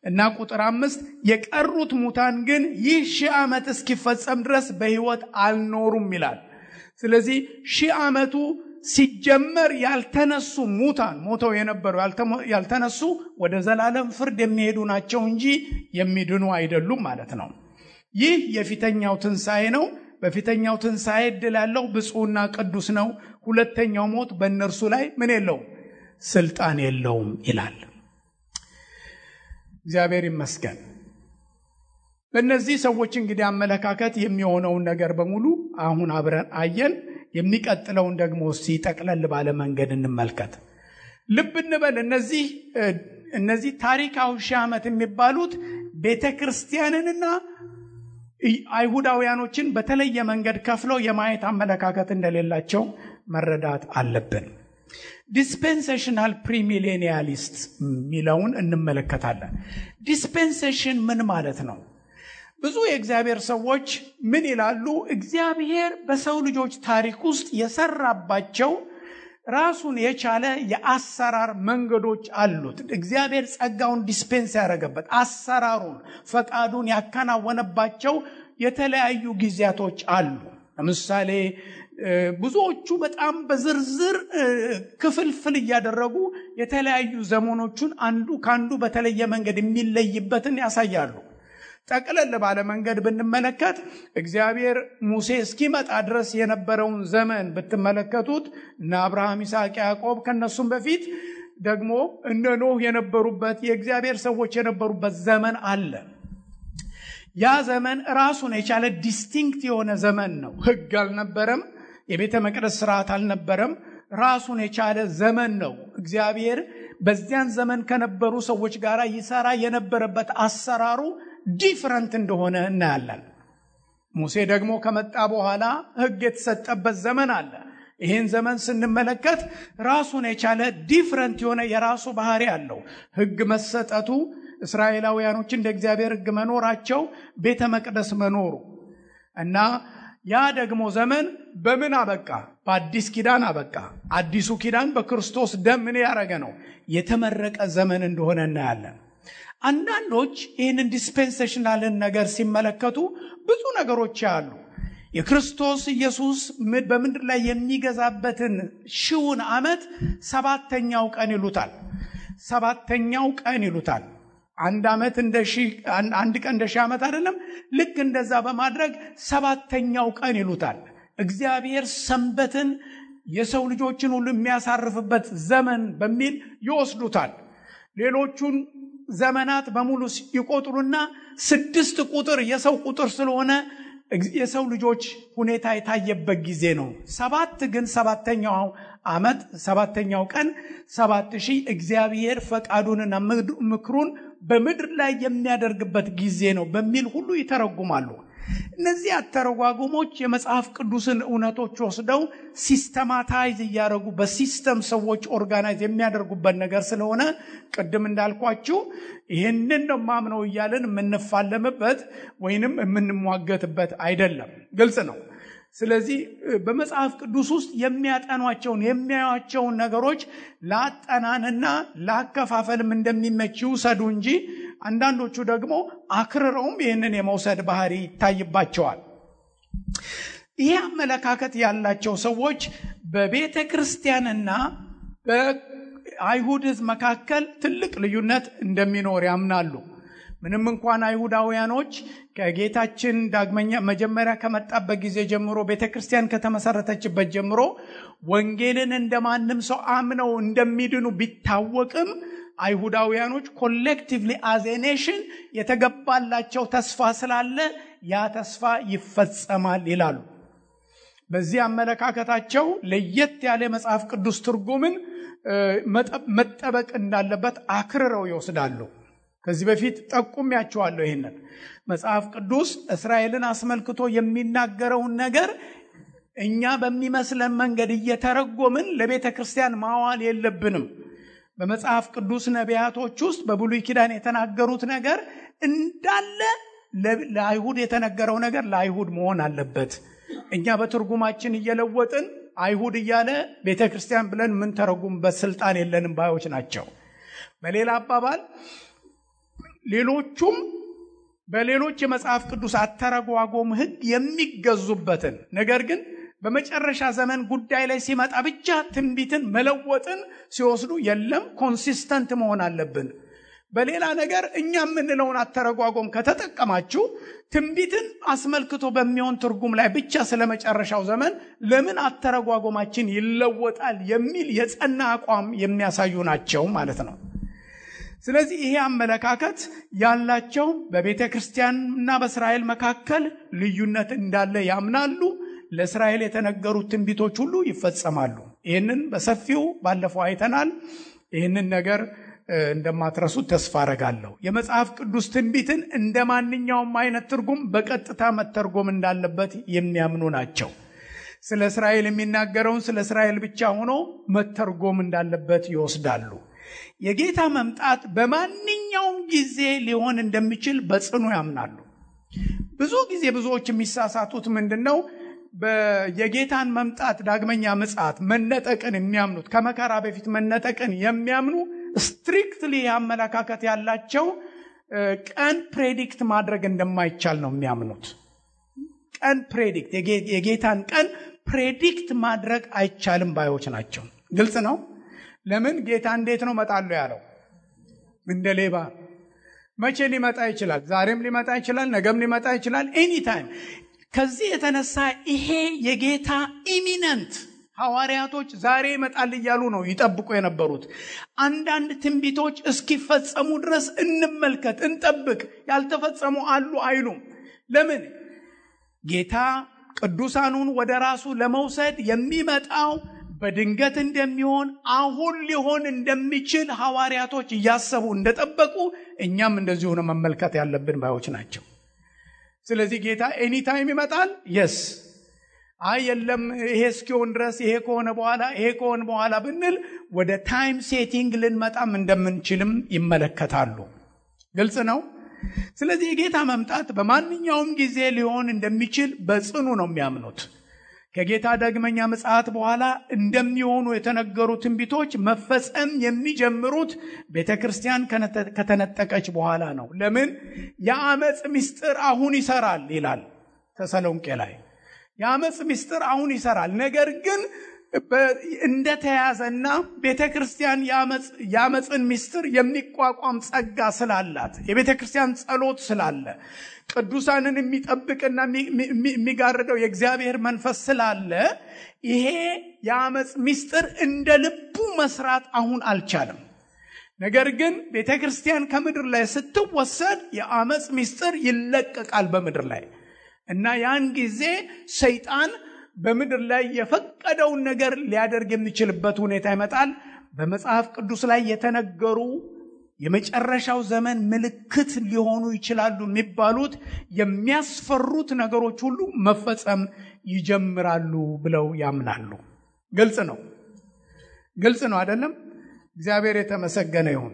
እና ቁጥር 5 የቀሩት ሙታን ግን ይህ 1000 ዓመት እስኪፈጸም ድረስ በሕይወት አልኖሩም ይላል። ስለዚህ 1000 ዓመቱ ሲጀመር ያልተነሱ ሙታን ሞተው የነበሩ ያልተነሱ ወደ ዘላለም ፍርድ የሚሄዱ ናቸው እንጂ የሚድኑ አይደሉም ማለት ነው። ይህ የፊተኛው ትንሣኤ ነው። በፊተኛው ትንሣኤ ዕድል ያለው ብፁዕና ቅዱስ ነው። ሁለተኛው ሞት በእነርሱ ላይ ምን የለውም? ስልጣን የለውም ይላል። እግዚአብሔር ይመስገን። በእነዚህ ሰዎች እንግዲህ አመለካከት የሚሆነውን ነገር በሙሉ አሁን አብረን አየን። የሚቀጥለውን ደግሞ እስቲ ጠቅለል ባለ መንገድ እንመልከት። ልብ እንበል። እነዚህ ታሪካዊ 1000 ዓመት የሚባሉት ቤተክርስቲያንንና አይሁዳውያኖችን በተለየ መንገድ ከፍለው የማየት አመለካከት እንደሌላቸው መረዳት አለብን። ዲስፔንሴሽናል ፕሪሚሌኒያሊስት ሚለውን እንመለከታለን። ዲስፔንሴሽን ምን ማለት ነው? ብዙ የእግዚአብሔር ሰዎች ምን ይላሉ? እግዚአብሔር በሰው ልጆች ታሪክ ውስጥ የሰራባቸው ራሱን የቻለ የአሰራር መንገዶች አሉት። እግዚአብሔር ጸጋውን ዲስፔንስ ያደረገበት አሰራሩን ፈቃዱን ያከናወነባቸው የተለያዩ ጊዜያቶች አሉ። ለምሳሌ ብዙዎቹ በጣም በዝርዝር ክፍልፍል እያደረጉ የተለያዩ ዘመኖቹን አንዱ ካንዱ በተለየ መንገድ የሚለይበትን ያሳያሉ። ጠቅለል ባለ መንገድ ብንመለከት እግዚአብሔር ሙሴ እስኪመጣ ድረስ የነበረውን ዘመን ብትመለከቱት እና አብርሃም፣ ይስሐቅ፣ ያዕቆብ ከነሱም በፊት ደግሞ እነ ኖህ የነበሩበት የእግዚአብሔር ሰዎች የነበሩበት ዘመን አለ። ያ ዘመን ራሱን የቻለ ዲስቲንክት የሆነ ዘመን ነው። ሕግ አልነበረም፣ የቤተ መቅደስ ስርዓት አልነበረም። ራሱን የቻለ ዘመን ነው። እግዚአብሔር በዚያን ዘመን ከነበሩ ሰዎች ጋር ይሰራ የነበረበት አሰራሩ ዲፍረንት እንደሆነ እናያለን። ሙሴ ደግሞ ከመጣ በኋላ ሕግ የተሰጠበት ዘመን አለ። ይህን ዘመን ስንመለከት ራሱን የቻለ ዲፍረንት የሆነ የራሱ ባህሪ አለው። ሕግ መሰጠቱ፣ እስራኤላውያኖች እንደ እግዚአብሔር ሕግ መኖራቸው፣ ቤተ መቅደስ መኖሩ እና ያ ደግሞ ዘመን በምን አበቃ? በአዲስ ኪዳን አበቃ። አዲሱ ኪዳን በክርስቶስ ደም ምን ያደረገ ነው? የተመረቀ ዘመን እንደሆነ እናያለን። አንዳንዶች ይህንን ዲስፔንሴሽናልን ነገር ሲመለከቱ ብዙ ነገሮች አሉ። የክርስቶስ ኢየሱስ በምድር ላይ የሚገዛበትን ሺውን ዓመት ሰባተኛው ቀን ይሉታል። ሰባተኛው ቀን ይሉታል። አንድ ዓመት አንድ ቀን እንደ ሺህ ዓመት አይደለም። ልክ እንደዛ በማድረግ ሰባተኛው ቀን ይሉታል። እግዚአብሔር ሰንበትን የሰው ልጆችን ሁሉ የሚያሳርፍበት ዘመን በሚል ይወስዱታል። ሌሎቹን ዘመናት በሙሉ ይቆጥሩና 6 ቁጥር የሰው ቁጥር ስለሆነ የሰው ልጆች ሁኔታ የታየበት ጊዜ ነው። 7 ግን ሰባተኛው ዓመት ሰባተኛው ቀን 7000 እግዚአብሔር ፈቃዱንና ምክሩን በምድር ላይ የሚያደርግበት ጊዜ ነው በሚል ሁሉ ይተረጉማሉ። እነዚህ አተረጓጉሞች የመጽሐፍ ቅዱስን እውነቶች ወስደው ሲስተማታይዝ እያደረጉ በሲስተም ሰዎች ኦርጋናይዝ የሚያደርጉበት ነገር ስለሆነ ቅድም እንዳልኳችሁ ይህንን ነው ማምነው እያለን የምንፋለምበት ወይንም የምንሟገትበት አይደለም። ግልጽ ነው። ስለዚህ በመጽሐፍ ቅዱስ ውስጥ የሚያጠኗቸውን የሚያዩአቸውን ነገሮች ላጠናንና ላከፋፈልም እንደሚመች ይውሰዱ እንጂ አንዳንዶቹ ደግሞ አክርረውም ይህንን የመውሰድ ባህሪ ይታይባቸዋል። ይህ አመለካከት ያላቸው ሰዎች በቤተ ክርስቲያንና በአይሁድ ሕዝብ መካከል ትልቅ ልዩነት እንደሚኖር ያምናሉ። ምንም እንኳን አይሁዳውያኖች ከጌታችን ዳግመኛ መጀመሪያ ከመጣበት ጊዜ ጀምሮ ቤተክርስቲያን ከተመሰረተችበት ጀምሮ ወንጌልን እንደማንም ሰው አምነው እንደሚድኑ ቢታወቅም አይሁዳውያኖች ኮሌክቲቭሊ አዝ ኤ ኔሽን የተገባላቸው ተስፋ ስላለ ያ ተስፋ ይፈጸማል ይላሉ። በዚህ አመለካከታቸው ለየት ያለ መጽሐፍ ቅዱስ ትርጉምን መጠበቅ እንዳለበት አክርረው ይወስዳሉ። ከዚህ በፊት ጠቁሜያቸዋለሁ። ይሄንን መጽሐፍ ቅዱስ እስራኤልን አስመልክቶ የሚናገረውን ነገር እኛ በሚመስለን መንገድ እየተረጎምን ለቤተ ክርስቲያን ማዋል የለብንም። በመጽሐፍ ቅዱስ ነቢያቶች ውስጥ በብሉይ ኪዳን የተናገሩት ነገር እንዳለ ለአይሁድ የተነገረው ነገር ለአይሁድ መሆን አለበት። እኛ በትርጉማችን እየለወጥን አይሁድ እያለ ቤተ ክርስቲያን ብለን ምን ተረጉምበት ስልጣን የለንም ባዮች ናቸው። በሌላ አባባል ሌሎቹም በሌሎች የመጽሐፍ ቅዱስ አተረጓጎም ሕግ የሚገዙበትን ነገር ግን በመጨረሻ ዘመን ጉዳይ ላይ ሲመጣ ብቻ ትንቢትን መለወጥን ሲወስዱ የለም ኮንሲስተንት መሆን አለብን። በሌላ ነገር እኛ የምንለውን አተረጓጎም ከተጠቀማችሁ ትንቢትን አስመልክቶ በሚሆን ትርጉም ላይ ብቻ ስለመጨረሻው ዘመን ለምን አተረጓጎማችን ይለወጣል የሚል የጸና አቋም የሚያሳዩ ናቸው ማለት ነው። ስለዚህ ይሄ አመለካከት ያላቸው በቤተ ክርስቲያንና በእስራኤል መካከል ልዩነት እንዳለ ያምናሉ። ለእስራኤል የተነገሩት ትንቢቶች ሁሉ ይፈጸማሉ። ይህንን በሰፊው ባለፈው አይተናል። ይህንን ነገር እንደማትረሱት ተስፋ አረጋለሁ። የመጽሐፍ ቅዱስ ትንቢትን እንደ ማንኛውም አይነት ትርጉም በቀጥታ መተርጎም እንዳለበት የሚያምኑ ናቸው። ስለ እስራኤል የሚናገረውን ስለ እስራኤል ብቻ ሆኖ መተርጎም እንዳለበት ይወስዳሉ። የጌታ መምጣት በማንኛውም ጊዜ ሊሆን እንደሚችል በጽኑ ያምናሉ። ብዙ ጊዜ ብዙዎች የሚሳሳቱት ምንድነው? የጌታን መምጣት ዳግመኛ ምጽአት መነጠቅን የሚያምኑት ከመከራ በፊት መነጠቅን የሚያምኑ ስትሪክትሊ አመለካከት ያላቸው ቀን ፕሬዲክት ማድረግ እንደማይቻል ነው የሚያምኑት። ቀን ፕሬዲክት የጌታን ቀን ፕሬዲክት ማድረግ አይቻልም ባዮች ናቸው። ግልጽ ነው። ለምን? ጌታ እንዴት ነው መጣለው ያለው? እንደ ሌባ። መቼ ሊመጣ ይችላል? ዛሬም ሊመጣ ይችላል፣ ነገም ሊመጣ ይችላል፣ ኤኒ ታይም። ከዚህ የተነሳ ይሄ የጌታ ኢሚነንት ሐዋርያቶች ዛሬ ይመጣል እያሉ ነው ይጠብቁ የነበሩት። አንዳንድ ትንቢቶች እስኪፈጸሙ ድረስ እንመልከት፣ እንጠብቅ፣ ያልተፈጸሙ አሉ አይሉም። ለምን? ጌታ ቅዱሳኑን ወደ ራሱ ለመውሰድ የሚመጣው በድንገት እንደሚሆን አሁን ሊሆን እንደሚችል ሐዋርያቶች እያሰቡ እንደጠበቁ እኛም እንደዚሁ ነው መመልከት ያለብን ባዮች ናቸው። ስለዚህ ጌታ ኤኒ ታይም ይመጣል። የስ የለም ይሄ እስኪሆን ድረስ ይሄ ከሆነ በኋላ ብንል ወደ ታይም ሴቲንግ ልንመጣም እንደምንችልም ይመለከታሉ። ግልጽ ነው። ስለዚህ የጌታ መምጣት በማንኛውም ጊዜ ሊሆን እንደሚችል በጽኑ ነው የሚያምኑት። ከጌታ ዳግመኛ ምጽአት በኋላ እንደሚሆኑ የተነገሩ ትንቢቶች መፈጸም የሚጀምሩት ቤተክርስቲያን ከተነጠቀች በኋላ ነው። ለምን? የአመጽ ምስጢር አሁን ይሰራል ይላል ተሰሎንቄ ላይ። የአመጽ ምስጢር አሁን ይሰራል። ነገር ግን እንደተያዘና ቤተክርስቲያን የአመጽን ምስጢር የሚቋቋም ጸጋ ስላላት የቤተክርስቲያን ጸሎት ስላለ ቅዱሳንን የሚጠብቅና የሚጋርደው የእግዚአብሔር መንፈስ ስላለ ይሄ የአመጽ ምስጢር እንደ ልቡ መስራት አሁን አልቻለም። ነገር ግን ቤተክርስቲያን ከምድር ላይ ስትወሰድ የአመጽ ምስጢር ይለቀቃል በምድር ላይ እና ያን ጊዜ ሰይጣን በምድር ላይ የፈቀደውን ነገር ሊያደርግ የሚችልበት ሁኔታ ይመጣል። በመጽሐፍ ቅዱስ ላይ የተነገሩ የመጨረሻው ዘመን ምልክት ሊሆኑ ይችላሉ የሚባሉት የሚያስፈሩት ነገሮች ሁሉ መፈጸም ይጀምራሉ ብለው ያምናሉ። ግልጽ ነው አይደለም? እግዚአብሔር የተመሰገነ ይሁን።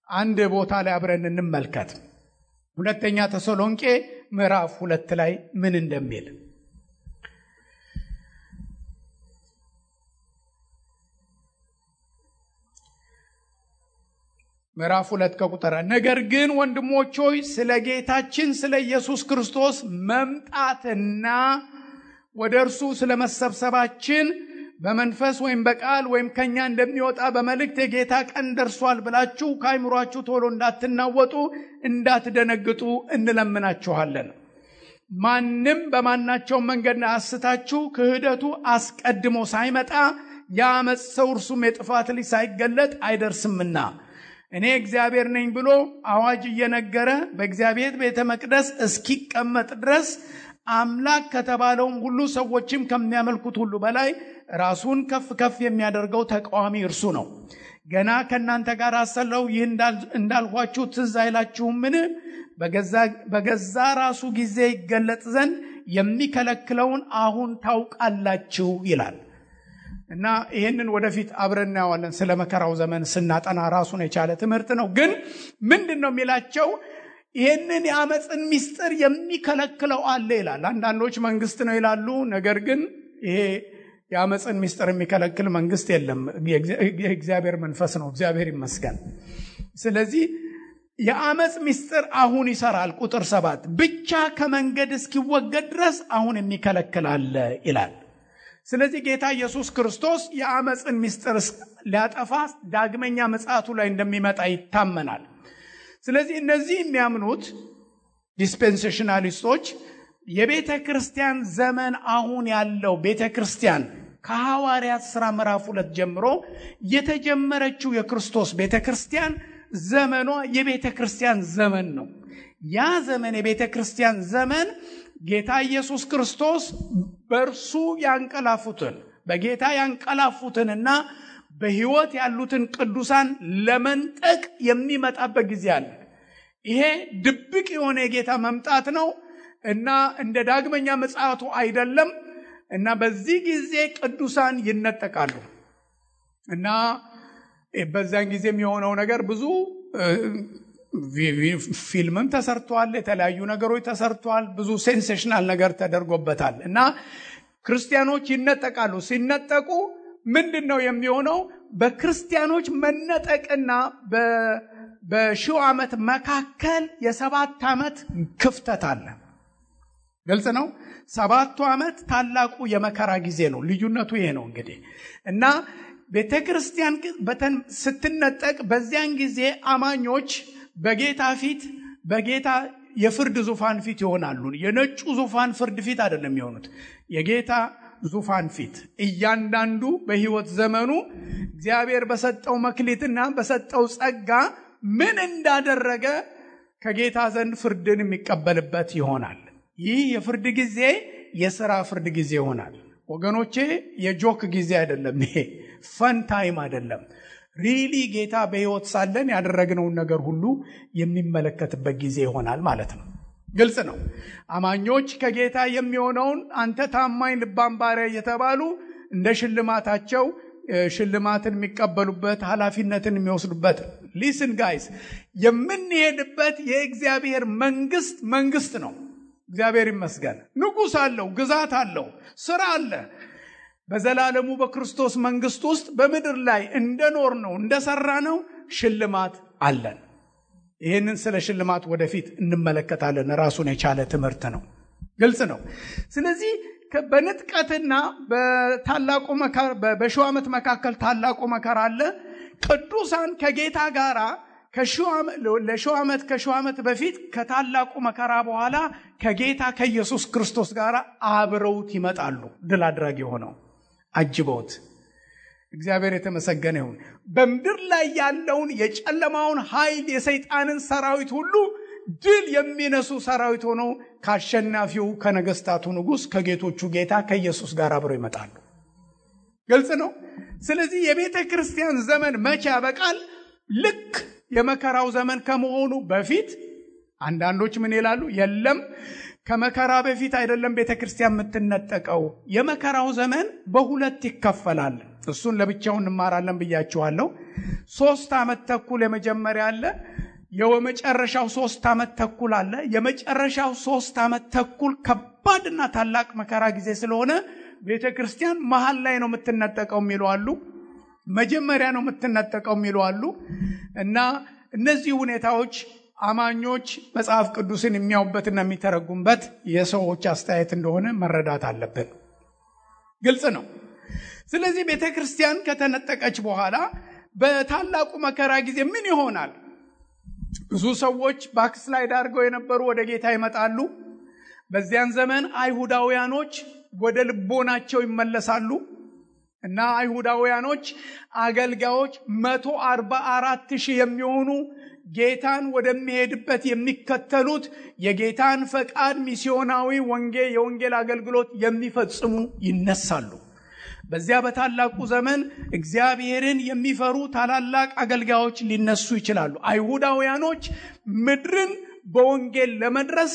አንድ ቦታ ላይ አብረን እንመልከት። ሁለተኛ ተሰሎንቄ ምዕራፍ 2 ላይ ምን እንደሚል ምዕራፍ 2 ከቁጥር ነገር ግን ወንድሞች ሆይ ስለ ጌታችን ስለ ኢየሱስ ክርስቶስ መምጣትና ወደ እርሱ ስለ መሰብሰባችን በመንፈስ ወይም በቃል ወይም ከኛ እንደሚወጣ በመልእክት የጌታ ቀን ደርሷል ብላችሁ ከአይምሯችሁ ቶሎ እንዳትናወጡ እንዳትደነግጡ እንለምናችኋለን። ማንም በማናቸው መንገድ አስታችሁ ክህደቱ አስቀድሞ ሳይመጣ የአመጽ ሰው እርሱም የጥፋት ልጅ ሳይገለጥ አይደርስምና እኔ እግዚአብሔር ነኝ ብሎ አዋጅ እየነገረ በእግዚአብሔር ቤተ መቅደስ እስኪቀመጥ ድረስ አምላክ ከተባለውም ሁሉ ሰዎችም ከሚያመልኩት ሁሉ በላይ ራሱን ከፍ ከፍ የሚያደርገው ተቃዋሚ እርሱ ነው። ገና ከናንተ ጋር አሰለው ይህ እንዳልኋችሁ ትዝ አይላችሁምን? በገዛ ራሱ ጊዜ ይገለጥ ዘንድ የሚከለክለውን አሁን ታውቃላችሁ ይላል። እና ይሄንን ወደፊት አብረን እናያለን። ስለ መከራው ዘመን ስናጠና ራሱን የቻለ ትምህርት ነው። ግን ምንድነው የሚላቸው? ይሄንን የአመጽን ምስጢር የሚከለክለው አለ ይላል። አንዳንዶች መንግስት ነው ይላሉ። ነገር ግን ይሄ የአመጽን ምስጢር የሚከለክል መንግስት የለም። የእግዚአብሔር መንፈስ ነው። እግዚአብሔር ይመስገን። ስለዚህ የአመጽ ምስጢር አሁን ይሰራል። ቁጥር 7 ብቻ ከመንገድ እስኪወገድ ድረስ አሁን የሚከለክል አለ ይላል። ስለዚህ ጌታ ኢየሱስ ክርስቶስ የአመጽን ምስጢር ሊያጠፋ ዳግመኛ ምጽአቱ ላይ እንደሚመጣ ይታመናል። ስለዚህ እነዚህ የሚያምኑት ዲስፔንሴሽናሊስቶች የቤተክርስቲያን ዘመን አሁን ያለው ቤተክርስቲያን ከሐዋርያት ሥራ ምዕራፍ 2 ጀምሮ የተጀመረችው የክርስቶስ ቤተክርስቲያን ዘመኗ የቤተክርስቲያን ዘመን ነው። ያ ዘመን የቤተክርስቲያን ዘመን ጌታ ኢየሱስ ክርስቶስ በእርሱ ያንቀላፉትን በጌታ ያንቀላፉትንና በሕይወት ያሉትን ቅዱሳን ለመንጠቅ የሚመጣበት ጊዜ አለ። ይሄ ድብቅ የሆነ የጌታ መምጣት ነው እና እንደ ዳግመኛ ምጽአቱ አይደለም። እና በዚህ ጊዜ ቅዱሳን ይነጠቃሉ እና በዛን ጊዜ የሚሆነው ነገር ብዙ ፊልምም ተሰርቷል፣ የተለያዩ ነገሮች ተሰርቷል፣ ብዙ ሴንሴሽናል ነገር ተደርጎበታል። እና ክርስቲያኖች ይነጠቃሉ። ሲነጠቁ ምንድነው የሚሆነው? በክርስቲያኖች መነጠቅና በሺው ዓመት መካከል የ7 ዓመት ክፍተት አለ። ግልጽ ነው። 7ቱ ዓመት ታላቁ የመከራ ጊዜ ነው። ልዩነቱ ይሄ ነው እንግዲህ። እና ቤተክርስቲያን ስትነጠቅ በዚያን ጊዜ አማኞች በጌታ ፊት በጌታ የፍርድ ዙፋን ፊት ይሆናሉ። የነጩ ዙፋን ፍርድ ፊት አይደለም የሚሆኑት፣ የጌታ ዙፋን ፊት እያንዳንዱ በሕይወት ዘመኑ እግዚአብሔር በሰጠው መክሊትና በሰጠው ጸጋ ምን እንዳደረገ ከጌታ ዘንድ ፍርድን የሚቀበልበት ይሆናል። ይህ የፍርድ ጊዜ የሥራ ፍርድ ጊዜ ይሆናል ወገኖቼ። የጆክ ጊዜ አይደለም። ይሄ ፈን ታይም አይደለም። ሪሊ ጌታ በሕይወት ሳለን ያደረግነውን ነገር ሁሉ የሚመለከትበት ጊዜ ይሆናል ማለት ነው። ግልጽ ነው። አማኞች ከጌታ የሚሆነውን አንተ ታማኝ ልባም ባሪያ እየተባሉ እንደ ሽልማታቸው ሽልማትን የሚቀበሉበት ኃላፊነትን የሚወስዱበት። ሊስን ጋይስ፣ የምንሄድበት የእግዚአብሔር መንግስት ነው። እግዚአብሔር ይመስገን። ንጉሥ አለው፣ ግዛት አለው፣ ሥራ አለ። በዘላለሙ በክርስቶስ መንግስት ውስጥ በምድር ላይ እንደኖር ነው እንደሰራ ነው ሽልማት አለን። ይህንን ስለ ሽልማት ወደፊት እንመለከታለን። ራሱን የቻለ ትምህርት ነው። ግልጽ ነው። ስለዚህ በንጥቀትና በታላቁ መከራ በሺው ዓመት መካከል ታላቁ መከራ አለ። ቅዱሳን ከጌታ ጋራ ለሺው ዓመት በፊት ከታላቁ መከራ በኋላ ከጌታ ከኢየሱስ ክርስቶስ ጋር አብረውት ይመጣሉ። ድል አድራጊ ሆነው አጅበውት። እግዚአብሔር የተመሰገነ ይሁን። በምድር ላይ ያለውን የጨለማውን ኃይል የሰይጣንን ሰራዊት ሁሉ ድል የሚነሱ ሰራዊት ሆነው ከአሸናፊው ከነገስታቱ ንጉስ ከጌቶቹ ጌታ ከኢየሱስ ጋር አብረው ይመጣሉ። ግልጽ ነው። ስለዚህ የቤተ ክርስቲያን ዘመን መቼ ያበቃል? ልክ የመከራው ዘመን ከመሆኑ በፊት። አንዳንዶች ምን ይላሉ? የለም ከመከራ በፊት አይደለም ቤተ ክርስቲያን የምትነጠቀው። የመከራው ዘመን በሁለት ይከፈላል። እሱን ለብቻው እንማራለን ብያችኋለሁ። 3 ዓመት ተኩል የመጀመሪያ አለ፣ የመጨረሻው 3 ዓመት ተኩል አለ። የመጨረሻው 3 ዓመት ተኩል ከባድና ታላቅ መከራ ጊዜ ስለሆነ ቤተ ክርስቲያን መሃል ላይ ነው የምትነጠቀው የሚሉ አሉ፣ መጀመሪያ ነው የምትነጠቀው የሚሉ አሉ። እና እነዚህ ሁኔታዎች አማኞች መጽሐፍ ቅዱስን የሚያዩበትና የሚተረጉምበት የሰዎች አስተያየት እንደሆነ መረዳት አለብን። ግልጽ ነው። ስለዚህ ቤተ ክርስቲያን ከተነጠቀች በኋላ በታላቁ መከራ ጊዜ ምን ይሆናል? ብዙ ሰዎች ባክስላይድ አድርገው የነበሩ ወደ ጌታ ይመጣሉ። በዚያን ዘመን አይሁዳውያኖች ወደ ልቦናቸው ይመለሳሉ እና አይሁዳውያኖች አገልጋዮች 144,000 የሚሆኑ ጌታን ወደሚሄድበት የሚከተሉት የጌታን ፈቃድ ሚስዮናዊ የወንጌል አገልግሎት የሚፈጽሙ ይነሳሉ። በዚያ በታላቁ ዘመን እግዚአብሔርን የሚፈሩ ታላላቅ አገልጋዮች ሊነሱ ይችላሉ። አይሁዳውያኖች ምድርን በወንጌል ለመድረስ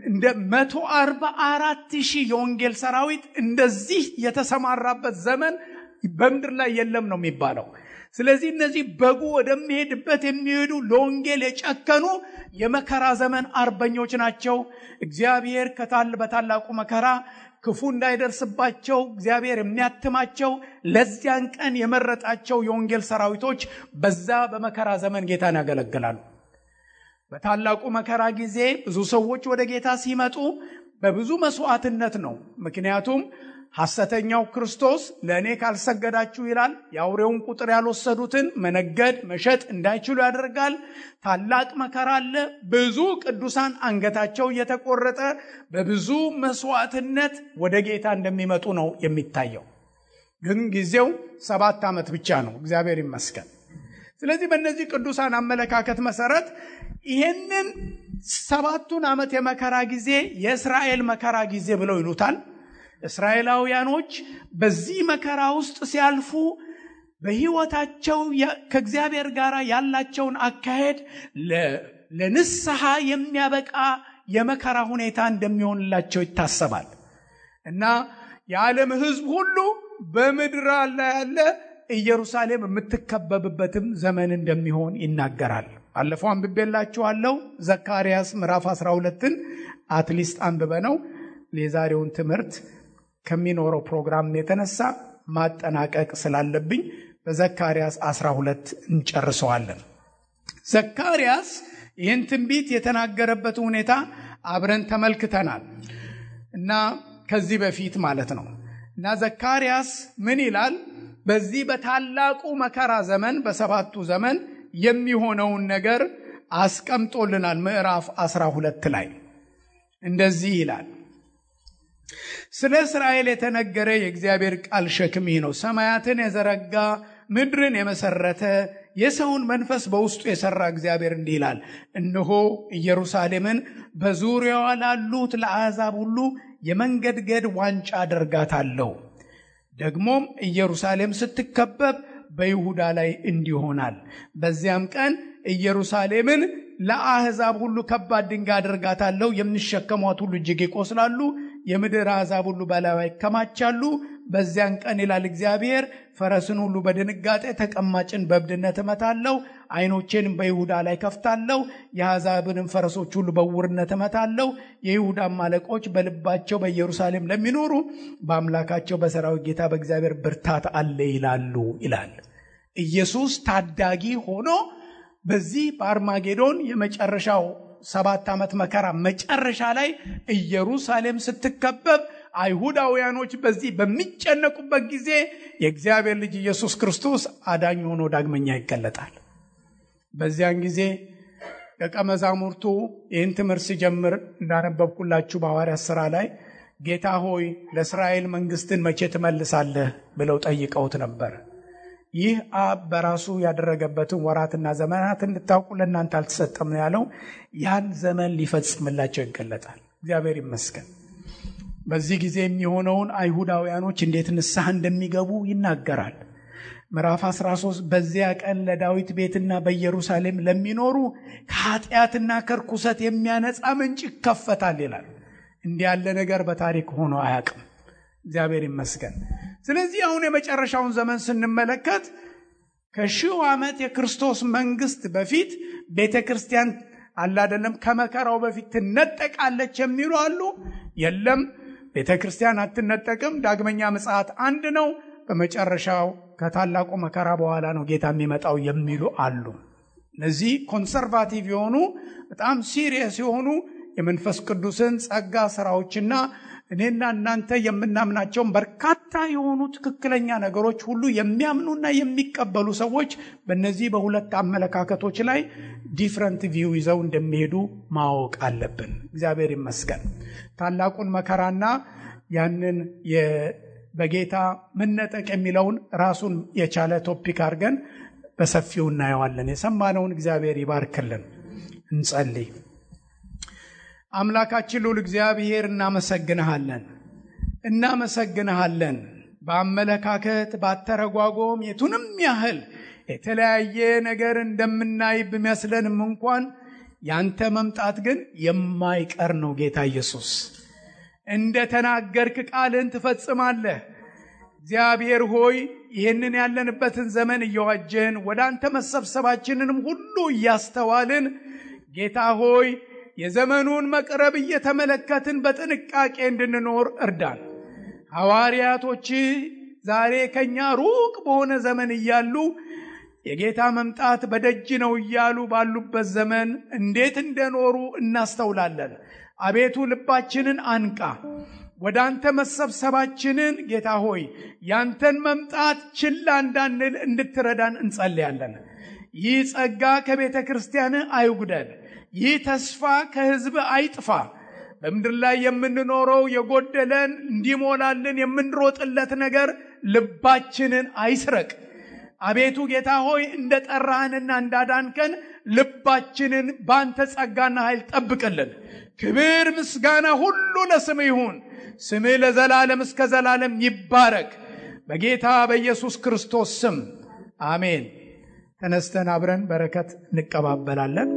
እንደ 144,000 የወንጌል ሰራዊት እንደዚህ የተሰማራበት ዘመን በምድር ላይ የለም ነው የሚባለው። ስለዚህ እነዚህ በጉ ወደሚሄድበት የሚሄዱ ለወንጌል የጨከኑ የመከራ ዘመን አርበኞች ናቸው። እግዚአብሔር በታላቁ መከራ ክፉ እንዳይደርስባቸው እግዚአብሔር የሚያትማቸው ለዚያን ቀን የመረጣቸው የወንጌል ሰራዊቶች በዛ በመከራ ዘመን ጌታን ያገለግላሉ። በታላቁ መከራ ጊዜ ብዙ ሰዎች ወደ ጌታ ሲመጡ በብዙ መስዋዕትነት ነው። ምክንያቱም ሐሰተኛው ክርስቶስ ለእኔ ካልሰገዳችሁ ይላል። የአውሬውን ቁጥር ያልወሰዱትን መነገድ መሸጥ እንዳይችሉ ያደርጋል። ታላቅ መከራ አለ። ብዙ ቅዱሳን አንገታቸው እየተቆረጠ በብዙ መስዋዕትነት ወደ ጌታ እንደሚመጡ ነው የሚታየው። ግን ጊዜው 7 ዓመት ብቻ ነው። እግዚአብሔር ይመስገን። ስለዚህ በእነዚህ ቅዱሳን አመለካከት መሰረት ይሄንን 7ቱን ዓመት የመከራ ጊዜ የእስራኤል መከራ ጊዜ ብለው ይሉታል። እስራኤላውያኖች በዚህ መከራ ውስጥ ሲያልፉ በሕይወታቸው ከእግዚአብሔር ጋር ያላቸውን አካሄድ ለንስሐ የሚያበቃ የመከራ ሁኔታ እንደሚሆንላቸው ይታሰባል እና የዓለም ሕዝብ ሁሉ በምድር ላይ ያለ ኢየሩሳሌም የምትከበብበትም ዘመን እንደሚሆን ይናገራል። አለፈው አንብቤላችኋለሁ። ዘካርያስ ምዕራፍ 12ን አትሊስት አንብበነው የዛሬውን ትምህርት ከሚኖረው ፕሮግራም የተነሳ ማጠናቀቅ ስላለብኝ በዘካርያስ 12 እንጨርሰዋለን። ዘካርያስ ይህን ትንቢት የተናገረበት ሁኔታ አብረን ተመልክተናል እና ከዚህ በፊት ማለት ነው። እና ዘካርያስ ምን ይላል? በዚህ በታላቁ መከራ ዘመን በሰባቱ ዘመን የሚሆነውን ነገር አስቀምጦልናል። ምዕራፍ 12 ላይ እንደዚህ ይላል። ስለ እስራኤል የተነገረ የእግዚአብሔር ቃል ሸክም ይህ ነው። ሰማያትን የዘረጋ ምድርን የመሰረተ የሰውን መንፈስ በውስጡ የሰራ እግዚአብሔር እንዲህ ይላል፣ እነሆ ኢየሩሳሌምን በዙሪያዋ ላሉት ለአሕዛብ ሁሉ የመንገድገድ ዋንጫ አደርጋታለሁ። ደግሞም ኢየሩሳሌም ስትከበብ በይሁዳ ላይ እንዲሆናል። በዚያም ቀን ኢየሩሳሌምን ለአሕዛብ ሁሉ ከባድ ድንጋይ አደርጋታለሁ። የሚሸከሟት ሁሉ እጅግ ይቆስላሉ። የምድር አሕዛብ ሁሉ በላይዋ ይከማቻሉ። በዚያን ቀን ይላል እግዚአብሔር፣ ፈረስን ሁሉ በድንጋጤ ተቀማጭን በእብድነት እመታለሁ። ዓይኖቼንም በይሁዳ ላይ ከፍታለሁ። የአሕዛብንም ፈረሶች ሁሉ በዕውርነት እመታለሁ። የይሁዳም አለቆች በልባቸው በኢየሩሳሌም ለሚኖሩ በአምላካቸው በሠራዊት ጌታ በእግዚአብሔር ብርታት አለ ይላሉ ይላል። ኢየሱስ ታዳጊ ሆኖ በዚህ በአርማጌዶን የመጨረሻው 7 ዓመት መከራ መጨረሻ ላይ ኢየሩሳሌም ስትከበብ አይሁዳውያኖች በዚህ በሚጨነቁበት ጊዜ የእግዚአብሔር ልጅ ኢየሱስ ክርስቶስ አዳኝ ሆኖ ዳግመኛ ይገለጣል። በዚያን ጊዜ ደቀ መዛሙርቱ ይህን ትምህርት ሲጀምር እንዳነበብኩላችሁ በሐዋርያት ሥራ ላይ ጌታ ሆይ ለእስራኤል መንግስትን መቼ ትመልሳለህ ብለው ጠይቀውት ነበር። ይህ አብ በራሱ ያደረገበትን ወራትና ዘመናት እንድታውቁ ለእናንተ አልተሰጠም ነው ያለው። ያን ዘመን ሊፈጽምላቸው ይገለጣል። እግዚአብሔር ይመስገን። በዚህ ጊዜ የሚሆነውን አይሁዳውያኖች እንዴት ንስሐ እንደሚገቡ ይናገራል። ምዕራፍ 13 በዚያ ቀን ለዳዊት ቤትና በኢየሩሳሌም ለሚኖሩ ከኃጢአትና ከርኩሰት የሚያነጻ ምንጭ ይከፈታል ይላል። እንዲህ ያለ ነገር በታሪክ ሆኖ አያውቅም። እግዚአብሔር ይመስገን። ስለዚህ አሁን የመጨረሻውን ዘመን ስንመለከት ከሺው ዓመት የክርስቶስ መንግስት በፊት ቤተክርስቲያን አላደለም ከመከራው በፊት ትነጠቃለች የሚሉ አሉ። የለም ቤተክርስቲያን አትነጠቅም። ዳግመኛ ምጽአት አንድ ነው። በመጨረሻው ከታላቁ መከራ በኋላ ነው ጌታ የሚመጣው የሚሉ አሉ። እነዚህ ኮንሰርቫቲቭ የሆኑ በጣም ሲሪየስ የሆኑ የመንፈስ ቅዱስን ጸጋ ስራዎችና እኔና እናንተ የምናምናቸውን በርካታ የሆኑ ትክክለኛ ነገሮች ሁሉ የሚያምኑና የሚቀበሉ ሰዎች በእነዚህ በሁለት አመለካከቶች ላይ ዲፍረንት ቪው ይዘው እንደሚሄዱ ማወቅ አለብን። እግዚአብሔር ይመስገን። ታላቁን መከራና ያንን በጌታ መነጠቅ የሚለውን ራሱን የቻለ ቶፒክ አድርገን በሰፊው እናየዋለን። የሰማነውን እግዚአብሔር ይባርክልን። እንጸልይ። አምላካችን ልዑል እግዚአብሔር እናመሰግንሃለን። በአመለካከት ባተረጓጎም የቱንም ያህል የተለያየ ነገር እንደምናይ ቢመስለንም እንኳን ያንተ መምጣት ግን የማይቀር ነው። ጌታ ኢየሱስ እንደ ተናገርክ ቃልን ትፈጽማለህ። እግዚአብሔር ሆይ ይህንን ያለንበትን ዘመን እየዋጀን ወደ አንተ መሰብሰባችንንም ሁሉ እያስተዋልን ጌታ ሆይ የዘመኑን መቅረብ እየተመለከትን በጥንቃቄ እንድንኖር እርዳን። ሐዋርያቶች ዛሬ ከኛ ሩቅ በሆነ ዘመን እያሉ የጌታ መምጣት በደጅ ነው እያሉ ባሉበት ዘመን እንዴት እንደኖሩ እናስተውላለን። አቤቱ ልባችንን አንቃ። ወደ አንተ መሰብሰባችንን ጌታ ሆይ ያንተን መምጣት ችላ እንዳንል እንድትረዳን እንጸልያለን። ይህ ጸጋ ከቤተ ክርስቲያን አይጉደል። ይህ ተስፋ ከሕዝብ አይጥፋ። በምድር ላይ የምንኖረው የጎደለን እንዲሞላልን የምንሮጥለት ነገር ልባችንን አይስረቅ። አቤቱ ጌታ ሆይ እንደጠራህንና እንዳዳንከን ልባችንን ባንተ ጸጋና ኃይል ጠብቅልን። ክብር ምስጋና ሁሉ ለስምህ ይሁን። ስምህ ለዘላለም እስከ ዘላለም ይባረክ። በጌታ በኢየሱስ ክርስቶስ ስም አሜን። ተነስተን አብረን በረከት እንቀባበላለን።